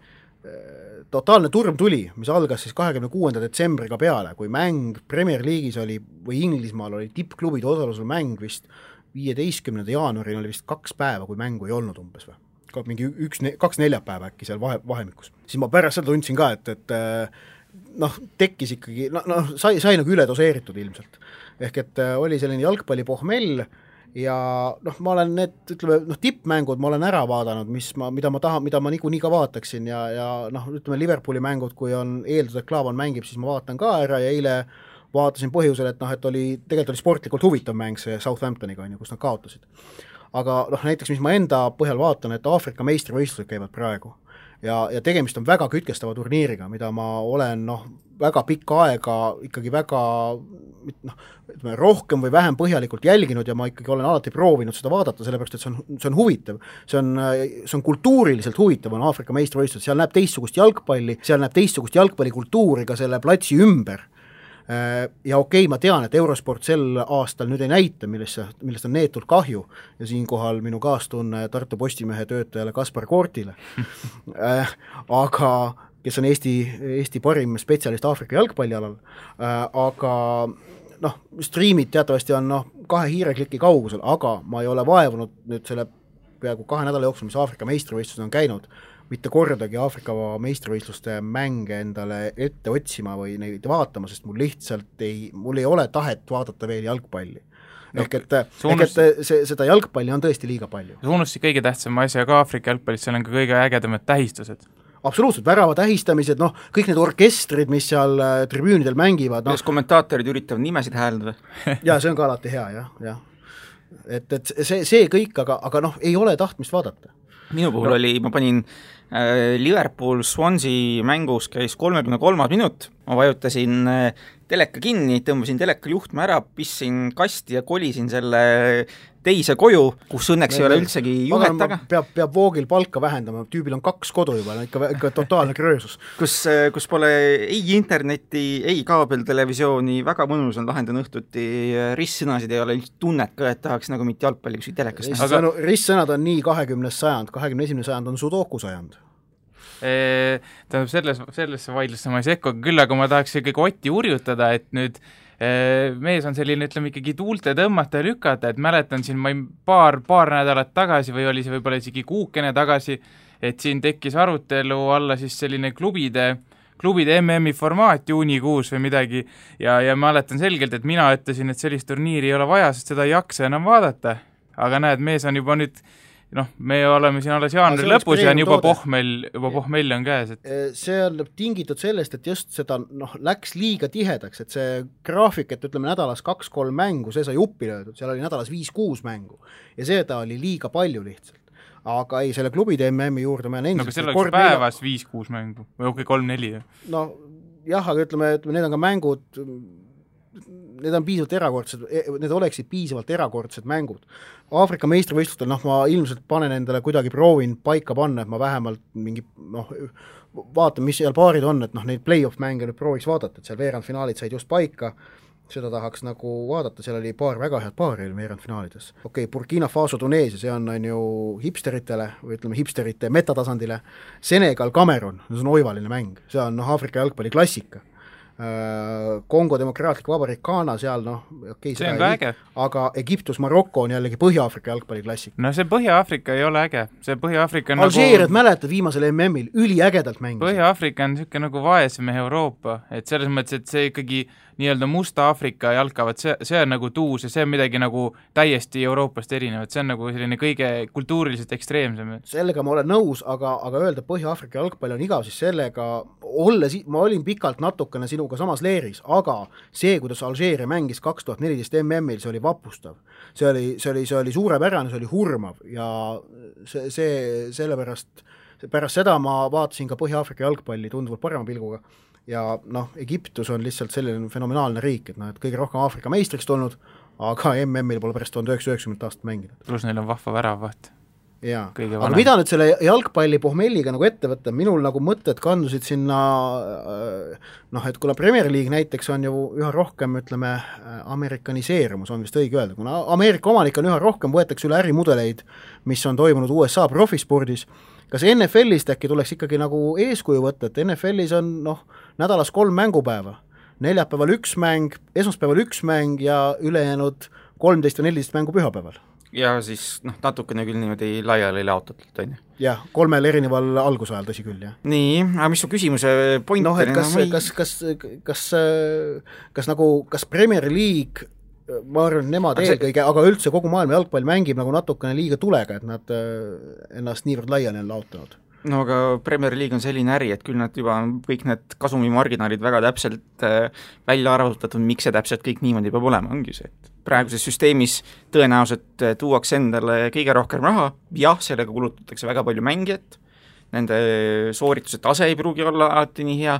B: totaalne turm tuli, mis algas siis 26. detsembriga peale, kui mäng Premier League'is oli või Inglismaal oli tippklubide osalusel mäng vist 15. jaanuaril oli vist 2 päeva, kui mängu ei olnud umbes või. Mingi 2 neljapäeva äkki seal vahemikus. Siis ma pärast seda tundsin ka, et tekkis ikkagi, sai nagu üledoseeritud ilmselt. Ehk et oli selline jalgpallipohmell ja ma olen need, ütleme, tippmängud ma olen ära vaadanud, mida ma niikuinii ka vaataksin ja ütleme, Liverpooli mängud, kui on eeldus, et Klaavan mängib, siis ma vaatan ka ära ja eile vaatasin põhjusel, et tegelikult oli sportlikult huvitav mäng see Southamptoniga, kus nad kaotasid. Aga näiteks, mis ma enda põhjal vaatan, et Aafrika meistrivõistlused käivad praegu ja tegemist on väga kütkestava turniiriga, mida ma olen väga pikka aega ikkagi väga rohkem või vähem põhjalikult jälginud ja ma ikkagi olen alati proovinud seda vaadata, sellepärast, et see on huvitav. See on kultuuriliselt huvitav, on Aafrika meistrivõistlused, seal näeb teistsugust jalgpalli, seal näeb teistsugust jalgpallikultuuri ka selle platsi ümber. Ja okei, ma tean, et Eurosport sel aastal nüüd ei näita, millest on neetult kahju ja siinkohal minu kaastunne Tartu Postimehe töötajale Kaspar Koortile, aga kes on Eesti parim spetsialist Aafrika jalgpallialal, aga striimid teatavasti on 2 hiirekliki kaugusel, aga ma ei ole vaevunud nüüd selle peaaegu 2 nädala jooksul, mis Aafrika meistrivõistlused on käinud, mitte kordagi Aafrika meistrivõistluste mänge endale ette otsima või neid vaatama, sest mul ei ole tahet vaadata veel jalgpalli. Ehk et seda jalgpalli on tõesti liiga palju.
D: See unustasid kõige tähtsama asja ka Aafrika jalgpallis, seal on ka kõige ägedamad tähistused.
B: Absoluutselt, värava tähistamised, kõik need orkestrid, mis seal tribüünidel mängivad.
C: Kuidas kommentaatorid üritavad nimesid hääldada?
B: Ja see on ka alati hea, jah. Et see kõik, aga ei ole tahtmist vaadata.
C: Minu puhul oli, ma panin Liverpool Swansea mängus käis 33 minut, ma vajutasin teleka kinni, tõmbasin teleka juhtme ära, pissin kasti ja kolisin selle teise koju, kus õnneks ei ole üldsegi juhet taga.
B: Peab voogil palka vähendama, tüübil on 2 kodu juba, ikka totaalne kröösus.
C: Kus pole ei interneti, ei kaabeltelevisiooni, väga mõnus on lahendan õhtuti, ristsõnasid ei ole tunnet ka, et tahaks nagu mitte jalgpalli kuskil telekast.
B: Ristsõnad on nii 20. sajand, 21. sajand on sudoku sajand.
D: Tähendab, sellesse vaidlusse ma ei sekku, küll aga ma tahaks ikkagi Otti urjutada, et nüüd mees on selline, ütleme ikkagi tuulte tõmmata ja lükata, et mäletan siin paar nädalat tagasi või oli see võib-olla isegi kuukene tagasi, et siin tekkis arutelu alla siis selline klubide MM-i formaat juunikuus või midagi ja ma mäletan selgelt, et mina ütlesin, et sellist turniiri ei ole vaja, sest seda ei jaksa enam vaadata, aga näed, mees on juba nüüd me oleme siin alles jaanuari lõpus ja juba pohmell on käes.
B: See on tingitud sellest, et just seda läks liiga tihedaks, et see graafik, et ütleme nädalas 2-3 mängu, see sai uppi löödud, seal oli nädalas 5-6 mängu ja seda oli liiga palju lihtsalt. Aga ei, selle klubide MM-i juurde ma olen
D: endiselt... No aga selle oleks päevas 5-6 mängu või okei, 3-4?
B: No jah, aga ütleme, need on ka mängud... Need on piisavalt erakordsed, need oleksid piisavalt erakordsed mängud. Aafrika meistrivõistlustel, ma ilmselt panen endale kuidagi proovin paika panna, et ma vähemalt mingi, vaatan, mis seal paarid on, et neid play-off mänge nüüd prooviks vaadata, et seal veerandfinaalid said just paika, seda tahaks nagu vaadata, seal oli paar väga head paari veerandfinaalides. Okei, Burkina Faso Tuneesia, see on ju hipsteritele, või ütleme hipsterite metatasandile, Senegal, Cameroon, see on oivaline mäng, see on Aafrika jalgpalli klassika. Kongo Demokraatlik Vabariik Ghana seal, noh, okei,
D: see on ka äge.
B: Aga Egiptus, Maroko on jällegi Põhja-Aafrika jalgpalliklassik.
D: No see Põhja-Aafrika ei ole äge, see Põhja-Aafrika on
B: Alžeeriat mäletad viimasel MM-il, üliägedalt mängis.
D: Põhja-Aafrika on niisugune nagu vaesem Euroopa, et selles mõttes, et see ikkagi nii-öelda Musta Aafrika jalkavad, see on nagu tuus ja see on midagi nagu täiesti Euroopast erinevat, see on nagu selline kõige kultuuriliselt ekstreemsem.
B: Sellega ma olen nõus, aga öelda Põhja-Aafrika jalgpall on igav, siis sellega ma olin pikalt natukene sinuga samas leeris, aga see, kuidas Alžeeria mängis 2014 MM-il, see oli vapustav. See oli suurepärane, see oli hurmav ja sellepärast pärast seda ma vaatasin ka Põhja-Aafrika jalgpalli tunduvalt parema pilguga ja noh, Egiptus on lihtsalt selline fenomenaalne riik, et kõige rohkem Aafrika meistriks tulnud, aga MM-il pole pärast 1990 aastat mänginud.
D: Plus neil on vahva väravaht.
B: Jaa, aga mida nüüd selle jalgpalli pohmelliga nagu ette võtta, minul nagu mõtted kandusid sinna, et kuna Premier League näiteks on ju üha rohkem, ütleme, amerikaniseerumus on vist õige öelda, kuna Ameerika omanik on üha rohkem, võetakse üle ärimudeleid, mis on toimunud USA profispordis, kas NFL-ist äkki tuleks ikkagi nagu eeskuju võtta, et NFL-is on nädalas 3 mängupäeva, neljapäeval 1 mäng, esmaspäeval 1 mäng ja ülejäänud 13 või 14 mängu pühapäeval.
C: Ja siis natukene küll niimoodi laiali laotatult, on ju?
B: Jah, 3 erineval algusajal, tõsi küll, jah.
C: Nii, aga mis su küsimuse point
B: et kas Premier League, ma arvan, nemad eelkõige, aga üldse kogu maailma jalgpall mängib nagu natukene liiga tulega, et nad ennast niivõrd laiali on laotanud.
C: No aga Premier League on selline äri, et küll nad juba kõik need kasumimarginaalid väga täpselt välja arvutatud, miks see täpselt kõik niimoodi peab olema, ongi see, et praeguses süsteemis tõenäoliselt tuuakse endale kõige rohkem raha, jah, sellega kulutatakse väga palju mängijat, nende soorituse tase ei pruugi olla alati nii hea,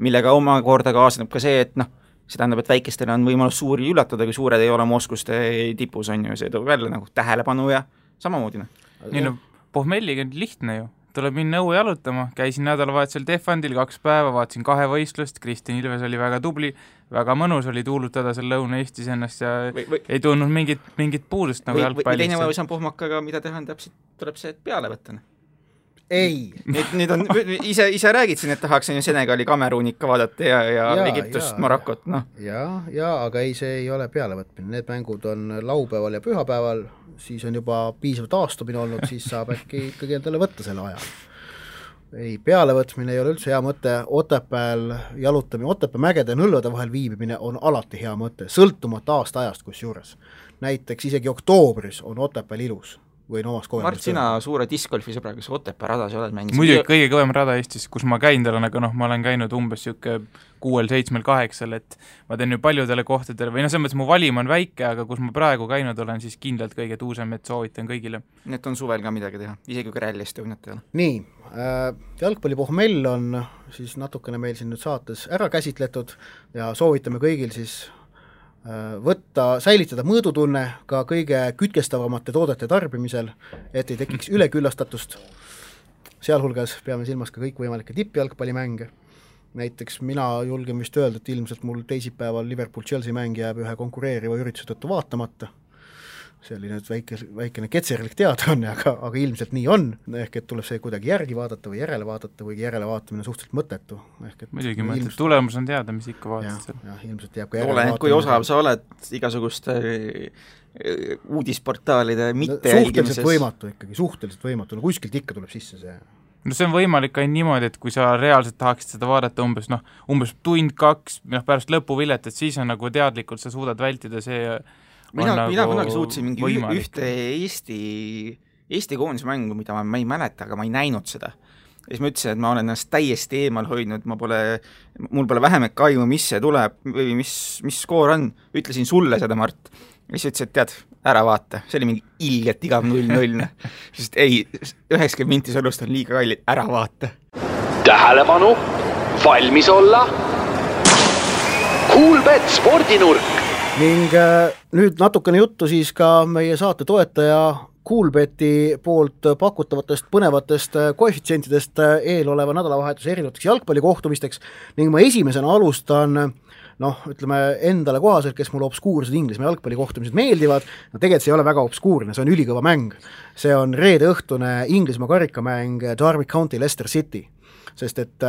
C: millega omakorda kaasneb ka see, et see tähendab, et väikestele on võimalus suuri üllatada, kui suured ei ole oma oskuste tipus, on ju, see toob jälle nagu tähelepanu ja samamoodi.
D: Nii pohmelliga on lihtne ju, tuleb minna õue jalutama, käisin nädalavahetusel Defandil 2 päeva, vaatasin 2 võistlust, Kristjan Ilves oli väga tubli, väga mõnus oli tuulutada seal Lõuna-Eestis ennast ja ei tulnud mingit puudust nagu jalgpallist.
C: Või teine võimalus on pohmakaga, mida teha, täpselt tuleb see peale võtta.
B: Ei.
C: Nüüd on, ise räägid siin, et tahaks Senegali Kameruun ikka vaadata ja Egiptust, Marokot,
B: Ja, aga ei, see ei ole pealevõtmine, need mängud on laupäeval ja pühapäeval, siis on juba piisav taastumine olnud, siis saab äkki ikkagi endale võtta selle aja. Ei, pealevõtmine ei ole üldse hea mõte, Otepääl jalutamine, Otepää mägede ja nõlvade vahel viibimine on alati hea mõte, sõltumata aasta-ajast kusjuures. Näiteks isegi oktoobris on Otepääl ilus.
C: Mart, sina suure discgolfi sõbra, kas Otepää radas oled mänginud?
D: Muidugi kõige kõvem rada Eestis, kus ma käin tal on, aga ma olen käinud umbes 6-7-8, et ma teen ju paljudele kohtadele, või selles mõttes mu valim on väike, aga kus ma praegu käinud olen, siis kindlalt kõige tuusem, et soovitan kõigile.
C: Need on suvel ka midagi teha, isegi kui Rally Estoniat ei ole.
B: Nii, jalgpallipohmell on siis natukene meil siin nüüd saates ära käsitletud ja soovitame kõigil siis säilitada mõõdutunne ka kõige kütkestavamate toodete tarbimisel, et ei tekiks üleküllastatust. Sealhulgas peame silmas ka kõikvõimalikke tippjalgpallimänge. Näiteks mina julgen vist öelda, et ilmselt mul teisipäeval Liverpool-Chelsea mäng jääb ühe konkureeriva ürituse tõttu vaatamata. See oli nüüd väikene ketserlik teadaanne, aga ilmselt nii on, ehk et tuleb see kuidagi järgi vaadata või järele vaadata või järele vaatamine suhteliselt mõttetu.
D: Muidugi mõttetu, tulemus on teada, mis ikka vaatad seal.
B: Jah, ilmselt jääb ka järele vaatamine.
C: Kui osav sa oled igasuguste uudisportaalide mitte jälgimises.
B: Suhteliselt võimatu, no kuskilt ikka tuleb sisse see.
D: No see on võimalik ainult niimoodi, et kui sa reaalselt tahaksid seda vaadata umbes tund 2 pärast lõpuvilet, et siis on nagu teadlikult sa suudad vältida see
C: Mina kunagi suutsin mingi ühte Eesti koondise mängu, mida ma ei mäleta, aga ma ei näinud seda. Ja siis ma ütlesin, et ma olen ennast täiesti eemal hoidnud, mul pole vähemek aimu, mis see tuleb või mis skoor on. Ütlesin sulle seda, Mart. Ja siis ütlesin, et tead, ära vaata. See oli mingi ilgelt igav 0-0. Sest ei, 90 minti sõlust on liiga kallid, ära vaata.
E: Tähelepanu, valmis olla. Coolbet spordinurk.
B: Ning nüüd natukene juttu siis ka meie saate toetaja Coolbeti poolt pakutavatest põnevatest koefitsientidest eeloleva nädalavahetuse erinevateks jalgpallikohtumisteks ning ma esimesena alustan ütleme endale kohaselt, kes mulle obskuursed Inglismaa jalgpallikohtumised meeldivad, tegelikult see ei ole väga obskuurne, see on ülikõva mäng. See on reede õhtune Inglismaa karikamäng Derby County Leicester City. sest et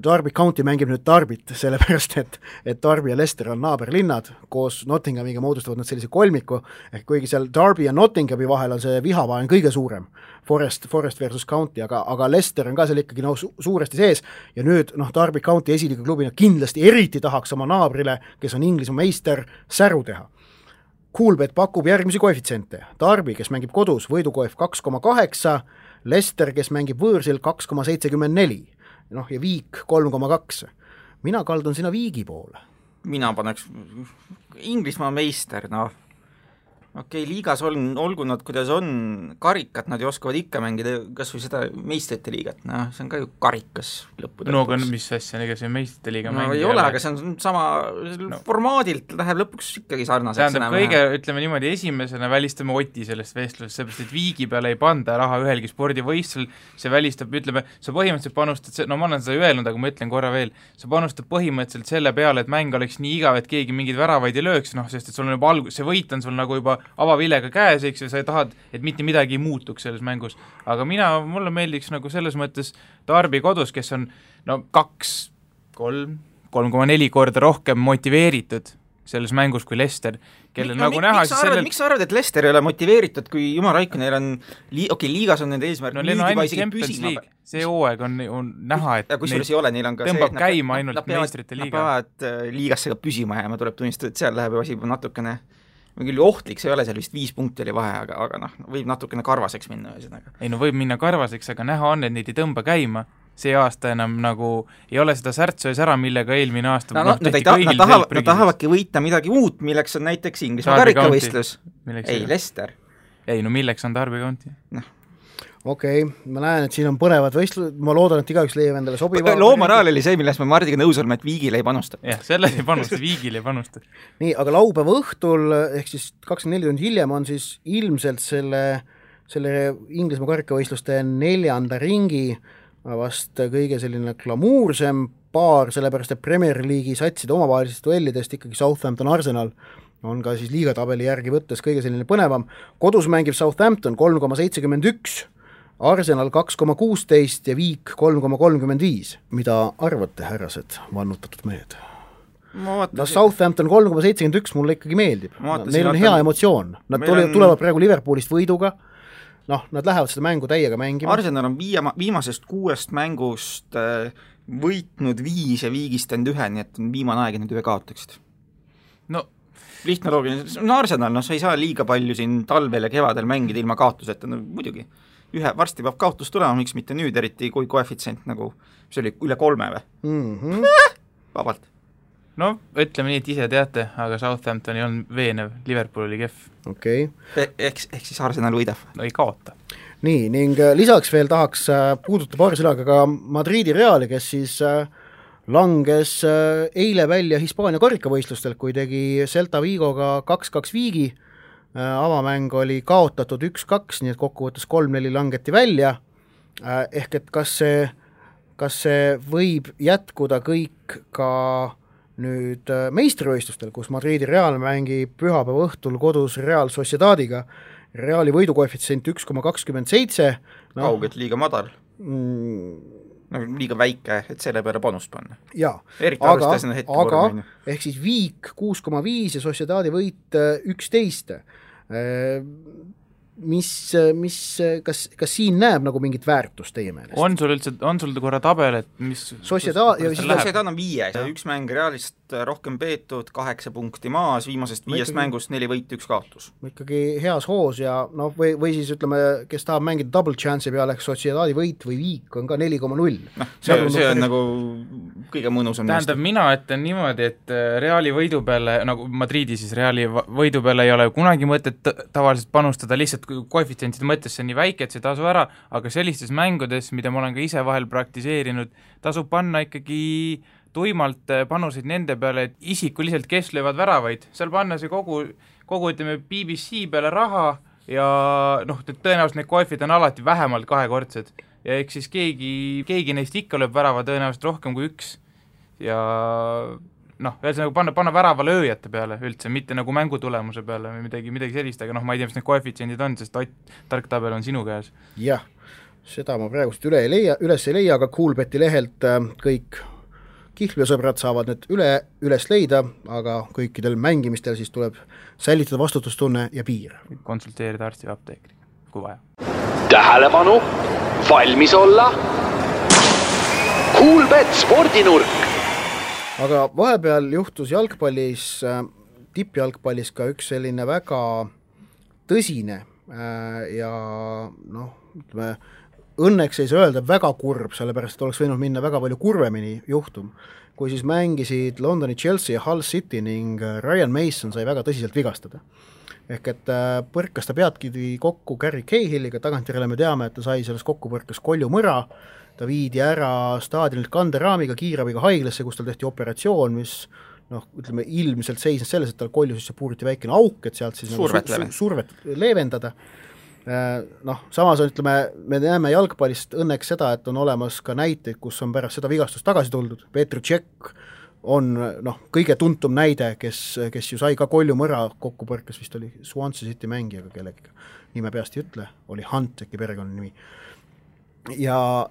B: Derby County mängib nüüd Derbyt, sellepärast et Derby ja Leicester on naaberlinnad, koos Nottinghamiga moodustavad nad sellise kolmiku, ehk kuigi seal Derby ja Nottinghami vahel on see vihavaen kõige suurem, Forest versus County, aga Leicester on ka seal ikkagi suuresti sees ja nüüd Derby County esiliiga klubina kindlasti eriti tahaks oma naabrile, kes on Inglismaa meister, säru teha. Coolbet pakub järgmisi koefitsiente. Derby, kes mängib kodus, võidukoef 2,8, Leicester, kes mängib võõrsil 2,74, ja Viik 3,2. Mina kaldun sinna Viigi poole.
C: Mina paneks Inglismaa meister, okei, liigas olgu nad, kuidas on, karikat nad ju oskavad ikka mängida, kas või seda meistrite liigat, see on ka ju karikas lõppude.
D: No aga mis asja, ega see meistrite liiga
C: ei ole, aga see on sama formaadilt läheb lõpuks ikkagi sarnaseks.
D: Tähendab, ütleme niimoodi, esimesena välistame Oti sellest vestlusest, seepärast, et Viigi peale ei panda raha ühelgi spordivõistlusel, see välistab, ütleme, sa põhimõtteliselt panustad, ma olen seda öelnud, aga ma ütlen korra veel, sa panustad põhimõtteliselt selle peale, et mäng oleks nii igav, et keegi mingeid väravaid ei lööks, sest et sul on juba see võit on sul nagu juba avavilega käes, eks, ja sa tahad, et mitte midagi ei muutuks selles mängus. Aga mulle meeldiks nagu selles mõttes Derby kodus, kes on 3,4 korda rohkem motiveeritud selles mängus kui Leicester, kellel nagu näha
C: miks sa arvad, et Leicester ei ole motiveeritud, kui Jumal Raikkonen neil on liigas on nende eesmärk
D: nüüd juba isegi püsima. See hooaeg on näha, et
C: kusjuures ei ole, neil on ka
D: tõmbab käima ainult meistrite liiga.
C: Nad peavad liigasse ka püsima jääma, tuleb tunnistada, et seal läheb asi natukene küll ohtlik, see ei ole seal vist 5 punkti oli vahe, aga võib natukene karvaseks minna ühesõnaga.
D: Ei võib minna karvaseks, aga näha on, et neid ei tõmba käima. See aasta enam nagu ei ole seda särtsu ees ära, millega eelmine aasta
C: nad tahavadki võita midagi uut, milleks on näiteks Inglismaa karikavõistlus. Ei, Leicester.
D: Ei, milleks on Derby County?
B: Okei, ma näen, et siin on põnevad võistlused, ma loodan, et igaüks leiab endale sobiva.
C: Loomoraal oli see, millest me Mardiga nõus oleme, et Viigile ei panusta.
D: Jah, selle ei panusta, Viigile ei panusta.
B: Nii, aga laupäeva õhtul, ehk siis 24 tundi hiljem on siis ilmselt selle Inglismaa karikavõistluste 4. ringi vast kõige selline glamuursem paar, sellepärast et Premier League'i satside omavahelisest duellidest ikkagi Southampton Arsenal on ka siis liigatabeli järgi võttes kõige selline põnevam. Kodus mängib Southampton 3,71, Arsenal 2,16 ja Viik 3,35. Mida arvate, härrased, vannutatud mehed? Southampton 3,71 mulle ikkagi meeldib. Neil on hea emotsioon. Nad tulevad praegu Liverpoolist võiduga. Nad lähevad seda mängu täiega mängima.
C: Arsenal on viimasest 6 mängust võitnud 5 ja Viigist end 1, nii et on viimane aeg, et need 1 kaotaksid. Lihtne loogiline, Arsenal, sa ei saa liiga palju siin talvel ja kevadel mängida ilma kaotuseta, muidugi. Varsti peab kaotus tulema, miks mitte nüüd, eriti kui koefitsient nagu, see oli üle 3 või? Vabalt.
D: Ütleme nii, et ise teate, aga Southampton ei olnud veenev, Liverpool oli kehv.
B: Okei.
C: Ehk siis Arsenal võidab.
D: Ei kaota.
B: Nii, ning lisaks veel tahaks puuduta paari sõnaga ka Madridi Reali, kes siis langes eile välja Hispaania karikavõistlustel, kui tegi Celta Vigoga 2-2 Viigi. Avamäng oli kaotatud 1-2, nii et kokkuvõttes 3-4 langeti välja. Ehk et kas see võib jätkuda kõik ka nüüd meistrivõistlustel, kus Madridi Real mängib pühapäeva õhtul kodus Real Sociedadiga. Reali võidukoefitsient 1,27.
C: Kaugelt liiga madal. Liiga väike, et selle peale panust panna.
B: Jaa, aga ehk siis Viik 6,5 ja Sociedadi võit 11. Kas siin näeb nagu mingit väärtust teie meelest?
D: On sul korra tabel, et mis
C: Sociedad on 5 ja 1 mäng Realist rohkem peetud, 8 punkti maas, viimasest 5 mängust 4 võit, 1 kaotus.
B: Ikkagi heas hoos ja või siis ütleme, kes tahab mängida double chance'i peale, ehk Sociedadi võit või Viik on ka 4,0.
C: See on nagu kõige mõnusam.
D: Tähendab, mina ütlen niimoodi, et Reali võidu peale, nagu Madridi siis Reali võidu peale ei ole kunagi mõtet tavaliselt panustada, lihtsalt koefitsientide mõttes see on nii väike, et see tasu ära, aga sellistes mängudes, mida ma olen ka ise vahel praktiseerinud, tasub panna ikkagi tuimalt panuseid nende peale, et isikuliselt kes löövad väravaid, seal panna see kogu ütleme BBC peale raha ja tõenäoliselt need koefid on alati vähemalt 2-kordsed ja eks siis keegi neist ikka lööb värava tõenäoliselt rohkem kui 1 ja ühesõnaga panna värava lööjate peale üldse, mitte nagu mängutulemuse peale või midagi sellist, aga ma ei tea, mis need koefitsiendid on, sest tark tabel on sinu käes.
B: Jah, seda ma praegust üles ei leia, aga Coolbeti lehelt kõik kihlveosõbrad saavad need üles leida, aga kõikidel mängimistel siis tuleb säilitada vastutustunne ja piir.
D: Konsulteerida arsti või apteekriga, kui vaja.
E: Tähelepanu, valmis olla. Coolbet spordinurk.
B: Aga vahepeal juhtus jalgpallis, tippjalgpallis ka üks selline väga tõsine ja ütleme, õnneks ei saa öelda väga kurb, sellepärast oleks võinud minna väga palju kurvemini juhtum, kui siis mängisid Londoni Chelsea ja Hull City ning Ryan Mason sai väga tõsiselt vigastada. Ehk et põrkas ta peadkidi kokku Gary Cahilliga, tagantjärele me teame, et ta sai selles kokkupõrkas koljumõra, ta viidi ära staadionilt kanderaamiga, kiirabiga haiglasse, kus tal tehti operatsioon, mis ütleme, ilmselt seisnes selles, et tal kolju sisse puuriti väikene auk, et sealt siis survet leevendada. Samas on, ütleme, me näeme jalgpallist õnneks seda, et on olemas ka näiteid, kus on pärast seda vigastust tagasi tuldud. Petr Cech on kõige tuntum näide, kes ju sai ka koljumõra kokkupõrkes, vist oli Swansea City mängijaga kellegiga, nime peast ei ütle, oli Hunt äkki perekonna nimi. Ja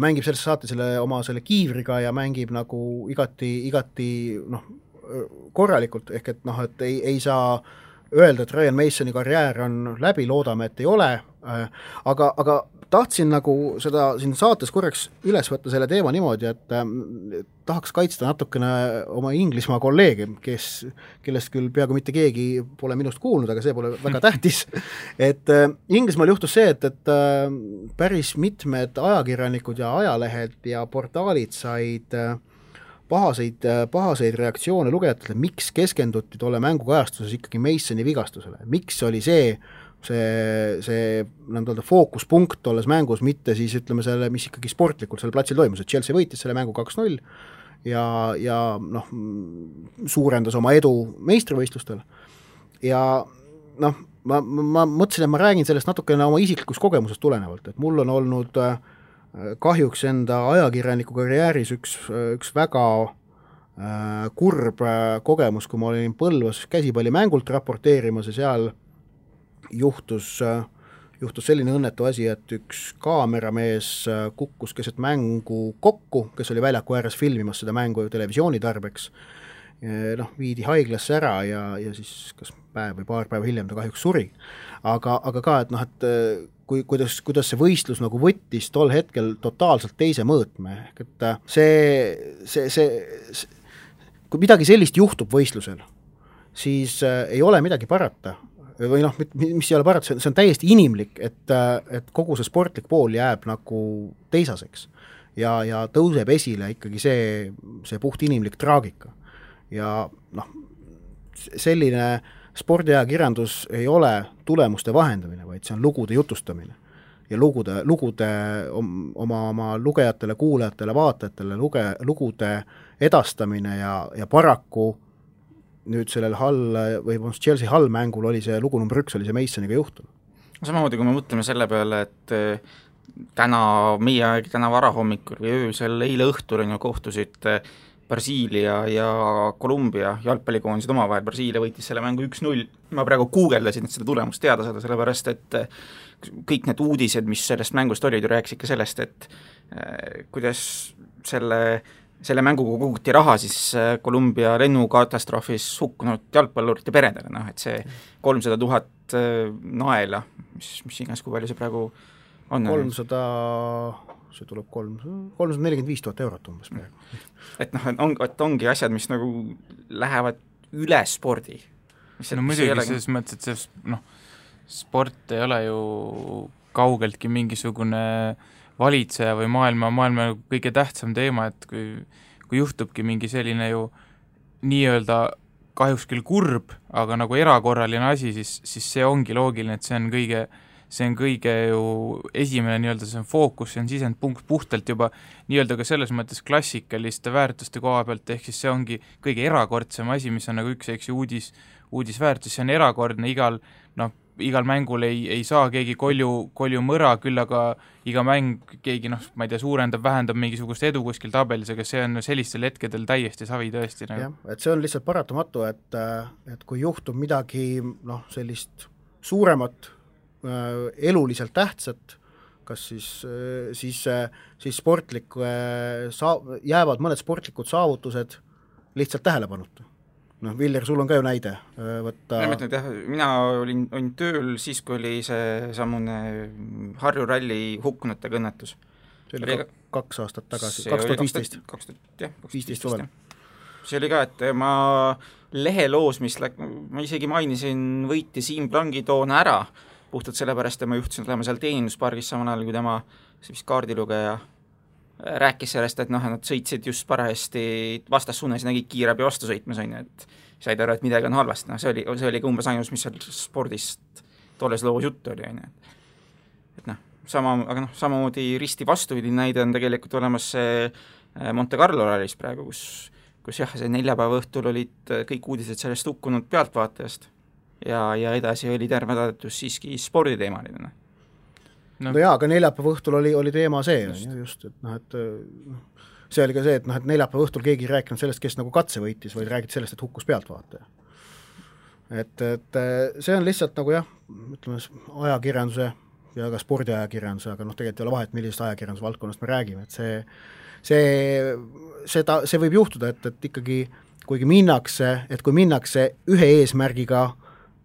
B: mängib selles saate oma kiivriga ja mängib nagu igati korralikult, ehk et ei saa öelda, et Ryan Masoni karjäär on läbi, loodame, et ei ole, aga tahtsin nagu seda siin saates korraks üles võtta selle teema niimoodi, et tahaks kaitsta natukene oma Inglismaa kolleege, kellest küll peaaegu mitte keegi pole minust kuulnud, aga see pole väga tähtis. Et Inglismaal juhtus see, et päris mitmed ajakirjanikud ja ajalehed ja portaalid said pahaseid reaktsioone lugejatele, miks keskenduti tolle mängukajastuses ikkagi Masoni vigastusele, miks oli see fookuspunkt tolles mängus, mitte siis ütleme selle, mis ikkagi sportlikult selle platsil toimus, et Chelsea võitis selle mängu 2-0 ja suurendas oma edu meistrivõistlustel ja ma mõtlesin, et ma räägin sellest natukene oma isiklikust kogemusest tulenevalt, et mul on olnud kahjuks enda ajakirjaniku karjääris üks väga kurb kogemus, kui ma olin Põlvas käsipallimängult raporteerimas ja seal juhtus selline õnnetu asi, et üks kaameramees kukkus keset mängu kokku, kes oli väljaku ääres filmimas seda mängu televisiooni tarbeks, viidi haiglasse ära ja siis kas päev või paar päeva hiljem ta kahjuks suri. Aga ka, et kuidas see võistlus nagu võttis tol hetkel totaalselt teise mõõtme, et kui midagi sellist juhtub võistlusel, siis ei ole midagi parata, või mis ei ole parata, see on täiesti inimlik, et kogu see sportlik pool jääb nagu teisaseks ja tõuseb esile ikkagi see puht inimlik traagika ja selline spordiajakirjandus ei ole tulemuste vahendamine, vaid see on lugude jutustamine ja lugude oma lugejatele, kuulajatele, vaatajatele lugude edastamine ja paraku nüüd sellel Chelsea Hull mängul oli see lugu number 1, oli see Masoniga juhtum.
C: Samamoodi, kui me mõtleme selle peale, et täna varahommikul või öösel eile õhtul kohtusid Brasiilia ja Kolumbia jalgpallikoondised omavahel, Brasiilia võitis selle mängu 1-0, ma praegu guugeldasin, et seda tulemust teada saada, sellepärast et kõik need uudised, mis sellest mängust olid, ju rääkisid ka sellest, et kuidas selle mänguga koguti raha siis Kolumbia lennukatastroofis hukkunud jalgpallurite peredele, et see 300 000 naela, mis iganes, kui palju see praegu on? 300,
B: see tuleb 345 000 eurot umbes praegu.
C: Et ongi asjad, mis nagu lähevad üle spordi.
D: Muidugi selles mõttes, et sport ei ole ju kaugeltki mingisugune valitseja või maailma kõige tähtsam teema, et kui juhtubki mingi selline ju nii-öelda kahjuks küll kurb, aga nagu erakorraline asi, siis see ongi loogiline, et see on kõige ju esimene nii-öelda, see on fookus, see on sisendpunkt puhtalt juba nii-öelda ka selles mõttes klassikaliste väärtuste koha pealt, ehk siis see ongi kõige erakordsem asi, mis on nagu üks uudisväärtus, see on erakordne, igal mängul ei saa keegi kolju mõra, küll aga iga mäng keegi, ma ei tea, suurendab, vähendab mingisugust edu kuskil tabelis, aga see on sellistel hetkedel täiesti savi tõesti.
B: Jah, et see on lihtsalt paratamatu, et kui juhtub midagi sellist suuremat, eluliselt tähtsat, kas siis jäävad mõned sportlikud saavutused lihtsalt tähelepanuta. Viljar, sul on ka ju näide võtta.
C: Mina olin tööl siis, kui oli see sammune Harju ralli hukkunute õnnetus.
B: See oli 2 aastat tagasi, 2015.
C: 2015 suvel. See oli ka, et ma leheloos, ma isegi mainisin võitja Siim Plangi toona ära, puhtalt sellepärast, et ma juhtusin olema seal teeninduspargis samal ajal, kui tema kaardilugeja rääkis sellest, et nad sõitsid just parajasti vastassuunas ja nägid kiirabi vastu sõitmas, et said aru, et midagi on halvasti. See oli ka umbes ainus, mis seal spordist tolles loos juttu oli. Aga samamoodi risti vastupidi näide on tegelikult olemas see Monte Carlo rallis praegu, kus jah, see neljapäeva õhtul olid kõik uudised sellest hukkunud pealtvaatajast ja edasi oli terve tadetus siiski sporditeemaline.
B: No jaa, aga neljapäeva õhtul oli teema see, just, et see oli ka see, et neljapäeva õhtul keegi ei rääkinud sellest, kes nagu katse võitis, vaid räägiti sellest, et hukkus pealtvaataja. Et see on lihtsalt nagu jah, ütleme ajakirjanduse ja ka spordiajakirjanduse, aga tegelikult ei ole vahet, millisest ajakirjanduse valdkonnast me räägime, et see võib juhtuda, et ikkagi kui minnakse ühe eesmärgiga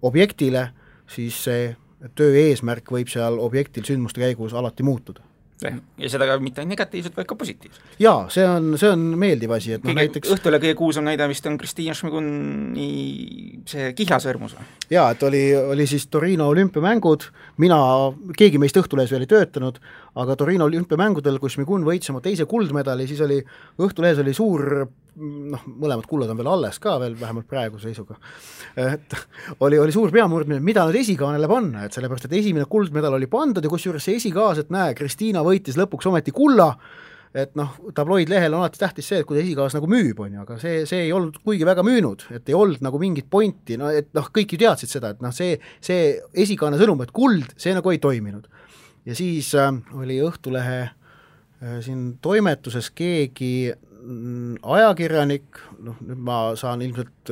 B: objektile, siis see töö eesmärk võib seal objektil sündmuste käigus alati muutuda.
C: Ja seda ka mitte negatiivselt, vaid ka positiivselt.
B: Jaa, see on meeldiv asi. Et näiteks
C: õhtule kõige kuulsam näide vist on Kristina Šmiguni see kihlasõrmus.
B: Jaa, et oli siis Torino olümpiamängud, keegi meist Õhtulehes veel ei töötanud, aga Torino olümpiamängudel, kus Šmigun võitis oma teise kuldmedali, siis oli Õhtulehes oli suur, mõlemad kullad on veel alles ka veel, vähemalt praeguse seisuga, et oli suur peamurdmine, mida nüüd esikaanele panna, et sellepärast, et esimene kuldmedal oli pandud ja kusjuures see esikaas, et näe, Kristina võitis lõpuks ometi kulla, et tabloidlehel on alati tähtis see, et kui esikaas nagu müüb, aga see ei olnud kuigi väga müünud, et ei olnud nagu mingit pointi, et kõik ju teadsid seda, et see esikaane sõnum, et kuld, see nagu ei toiminud. Ja siis oli Õhtulehe siin toimetuses keegi ajakirjanik, nüüd ma saan ilmselt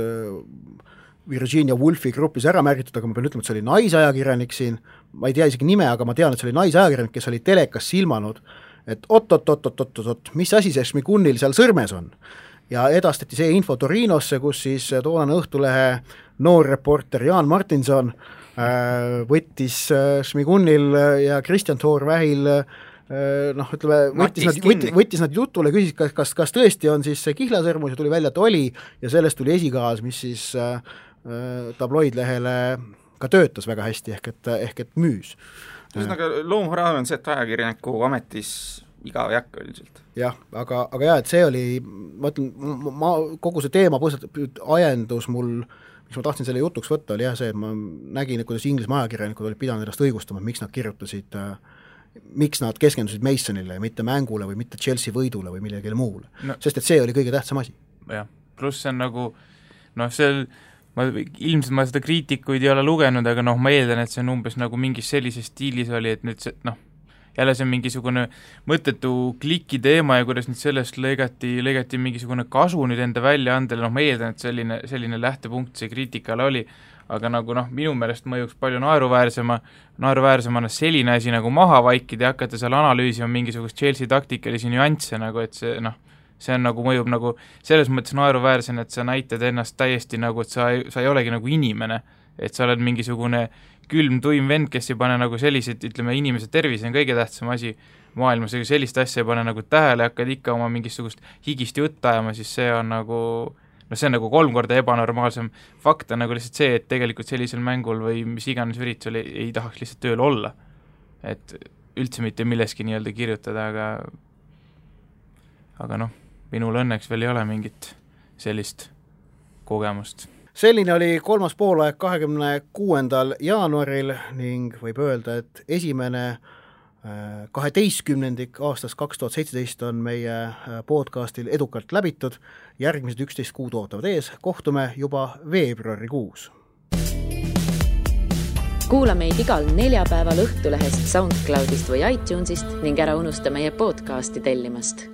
B: Virginia Woolfi grupis ära märgitud, aga ma pean ütlema, et see oli naisajakirjanik siin, ma ei tea isegi nime, aga ma tean, et see oli naisajakirjanik, kes oli telekas silmanud, et oot, mis asi see Šmigunil seal sõrmes on. Ja edastati see info Torinosse, kus siis toonane Õhtulehe noorreporter Jaan Martinson võttis Šmigunil ja Kristjan Toorvähil võttis nad jutule, küsis, kas tõesti on siis see kihlasõrmus ja tuli välja, et oli ja sellest tuli esikaas, mis siis tabloidlehele ka töötas väga hästi, ehk et müüs.
C: Ühesõnaga loomhoraan on see, et ajakirjaniku ametis igav ei hakka üldiselt.
B: Jah, aga jah, et see oli, ma ütlen, kogu see teema ajendus mul, mis ma tahtsin selle jutuks võtta, oli jah see, et ma nägin, kuidas Inglismaa ajakirjanikud olid pidanud ennast õigustama, miks nad kirjutasid miks nad keskendusid Masonile ja mitte mängule või mitte Chelsea võidule või millegile muule. Sest et see oli kõige tähtsam asi.
D: Jah, pluss see on nagu ilmselt ma seda kriitikuid ei ole lugenud, aga ma eeldan, et see on umbes nagu mingis sellises stiilis oli, et nüüd see, jälle see on mingisugune mõttetu kliki teema ja kuidas nüüd sellest lõigati mingisugune kasu nüüd enda väljaandele, ma eeldan, et selline lähtepunkt see kriitikale oli, aga nagu minu meelest mõjuks palju naeruväärsemana selline asi nagu maha vaikida ja hakata seal analüüsima mingisugust Chelsea taktikalisi nüansse, nagu et see on nagu mõjub nagu selles mõttes naeruväärsena, et sa näitad ennast täiesti nagu, et sa ei olegi nagu inimene, et sa oled mingisugune külm tuim vend, kes ei pane nagu sellised, ütleme, inimese tervis on kõige tähtsam asi maailmas, ega sellist asja ei pane nagu tähele, hakkad ikka oma mingisugust higist jutt ajama, siis see on nagu see on nagu 3 korda ebanormaalsem. Fakt on nagu lihtsalt see, et tegelikult sellisel mängul või mis iganes üritusel ei tahaks lihtsalt tööl olla. Et üldse mitte milleski nii-öelda kirjutada, aga minul õnneks veel ei ole mingit sellist kogemust.
B: Selline oli 3. poolaeg 26. jaanuaril ning võib öelda, et esimene 12. aastast 2017 on meie podcastil edukalt läbitud, järgmised 11 kuud ootavad ees, kohtume juba veebruarikuus.
A: Kuula meid igal neljapäeval Õhtulehest, SoundCloudist või iTunesist ning ära unusta meie podcasti tellimast.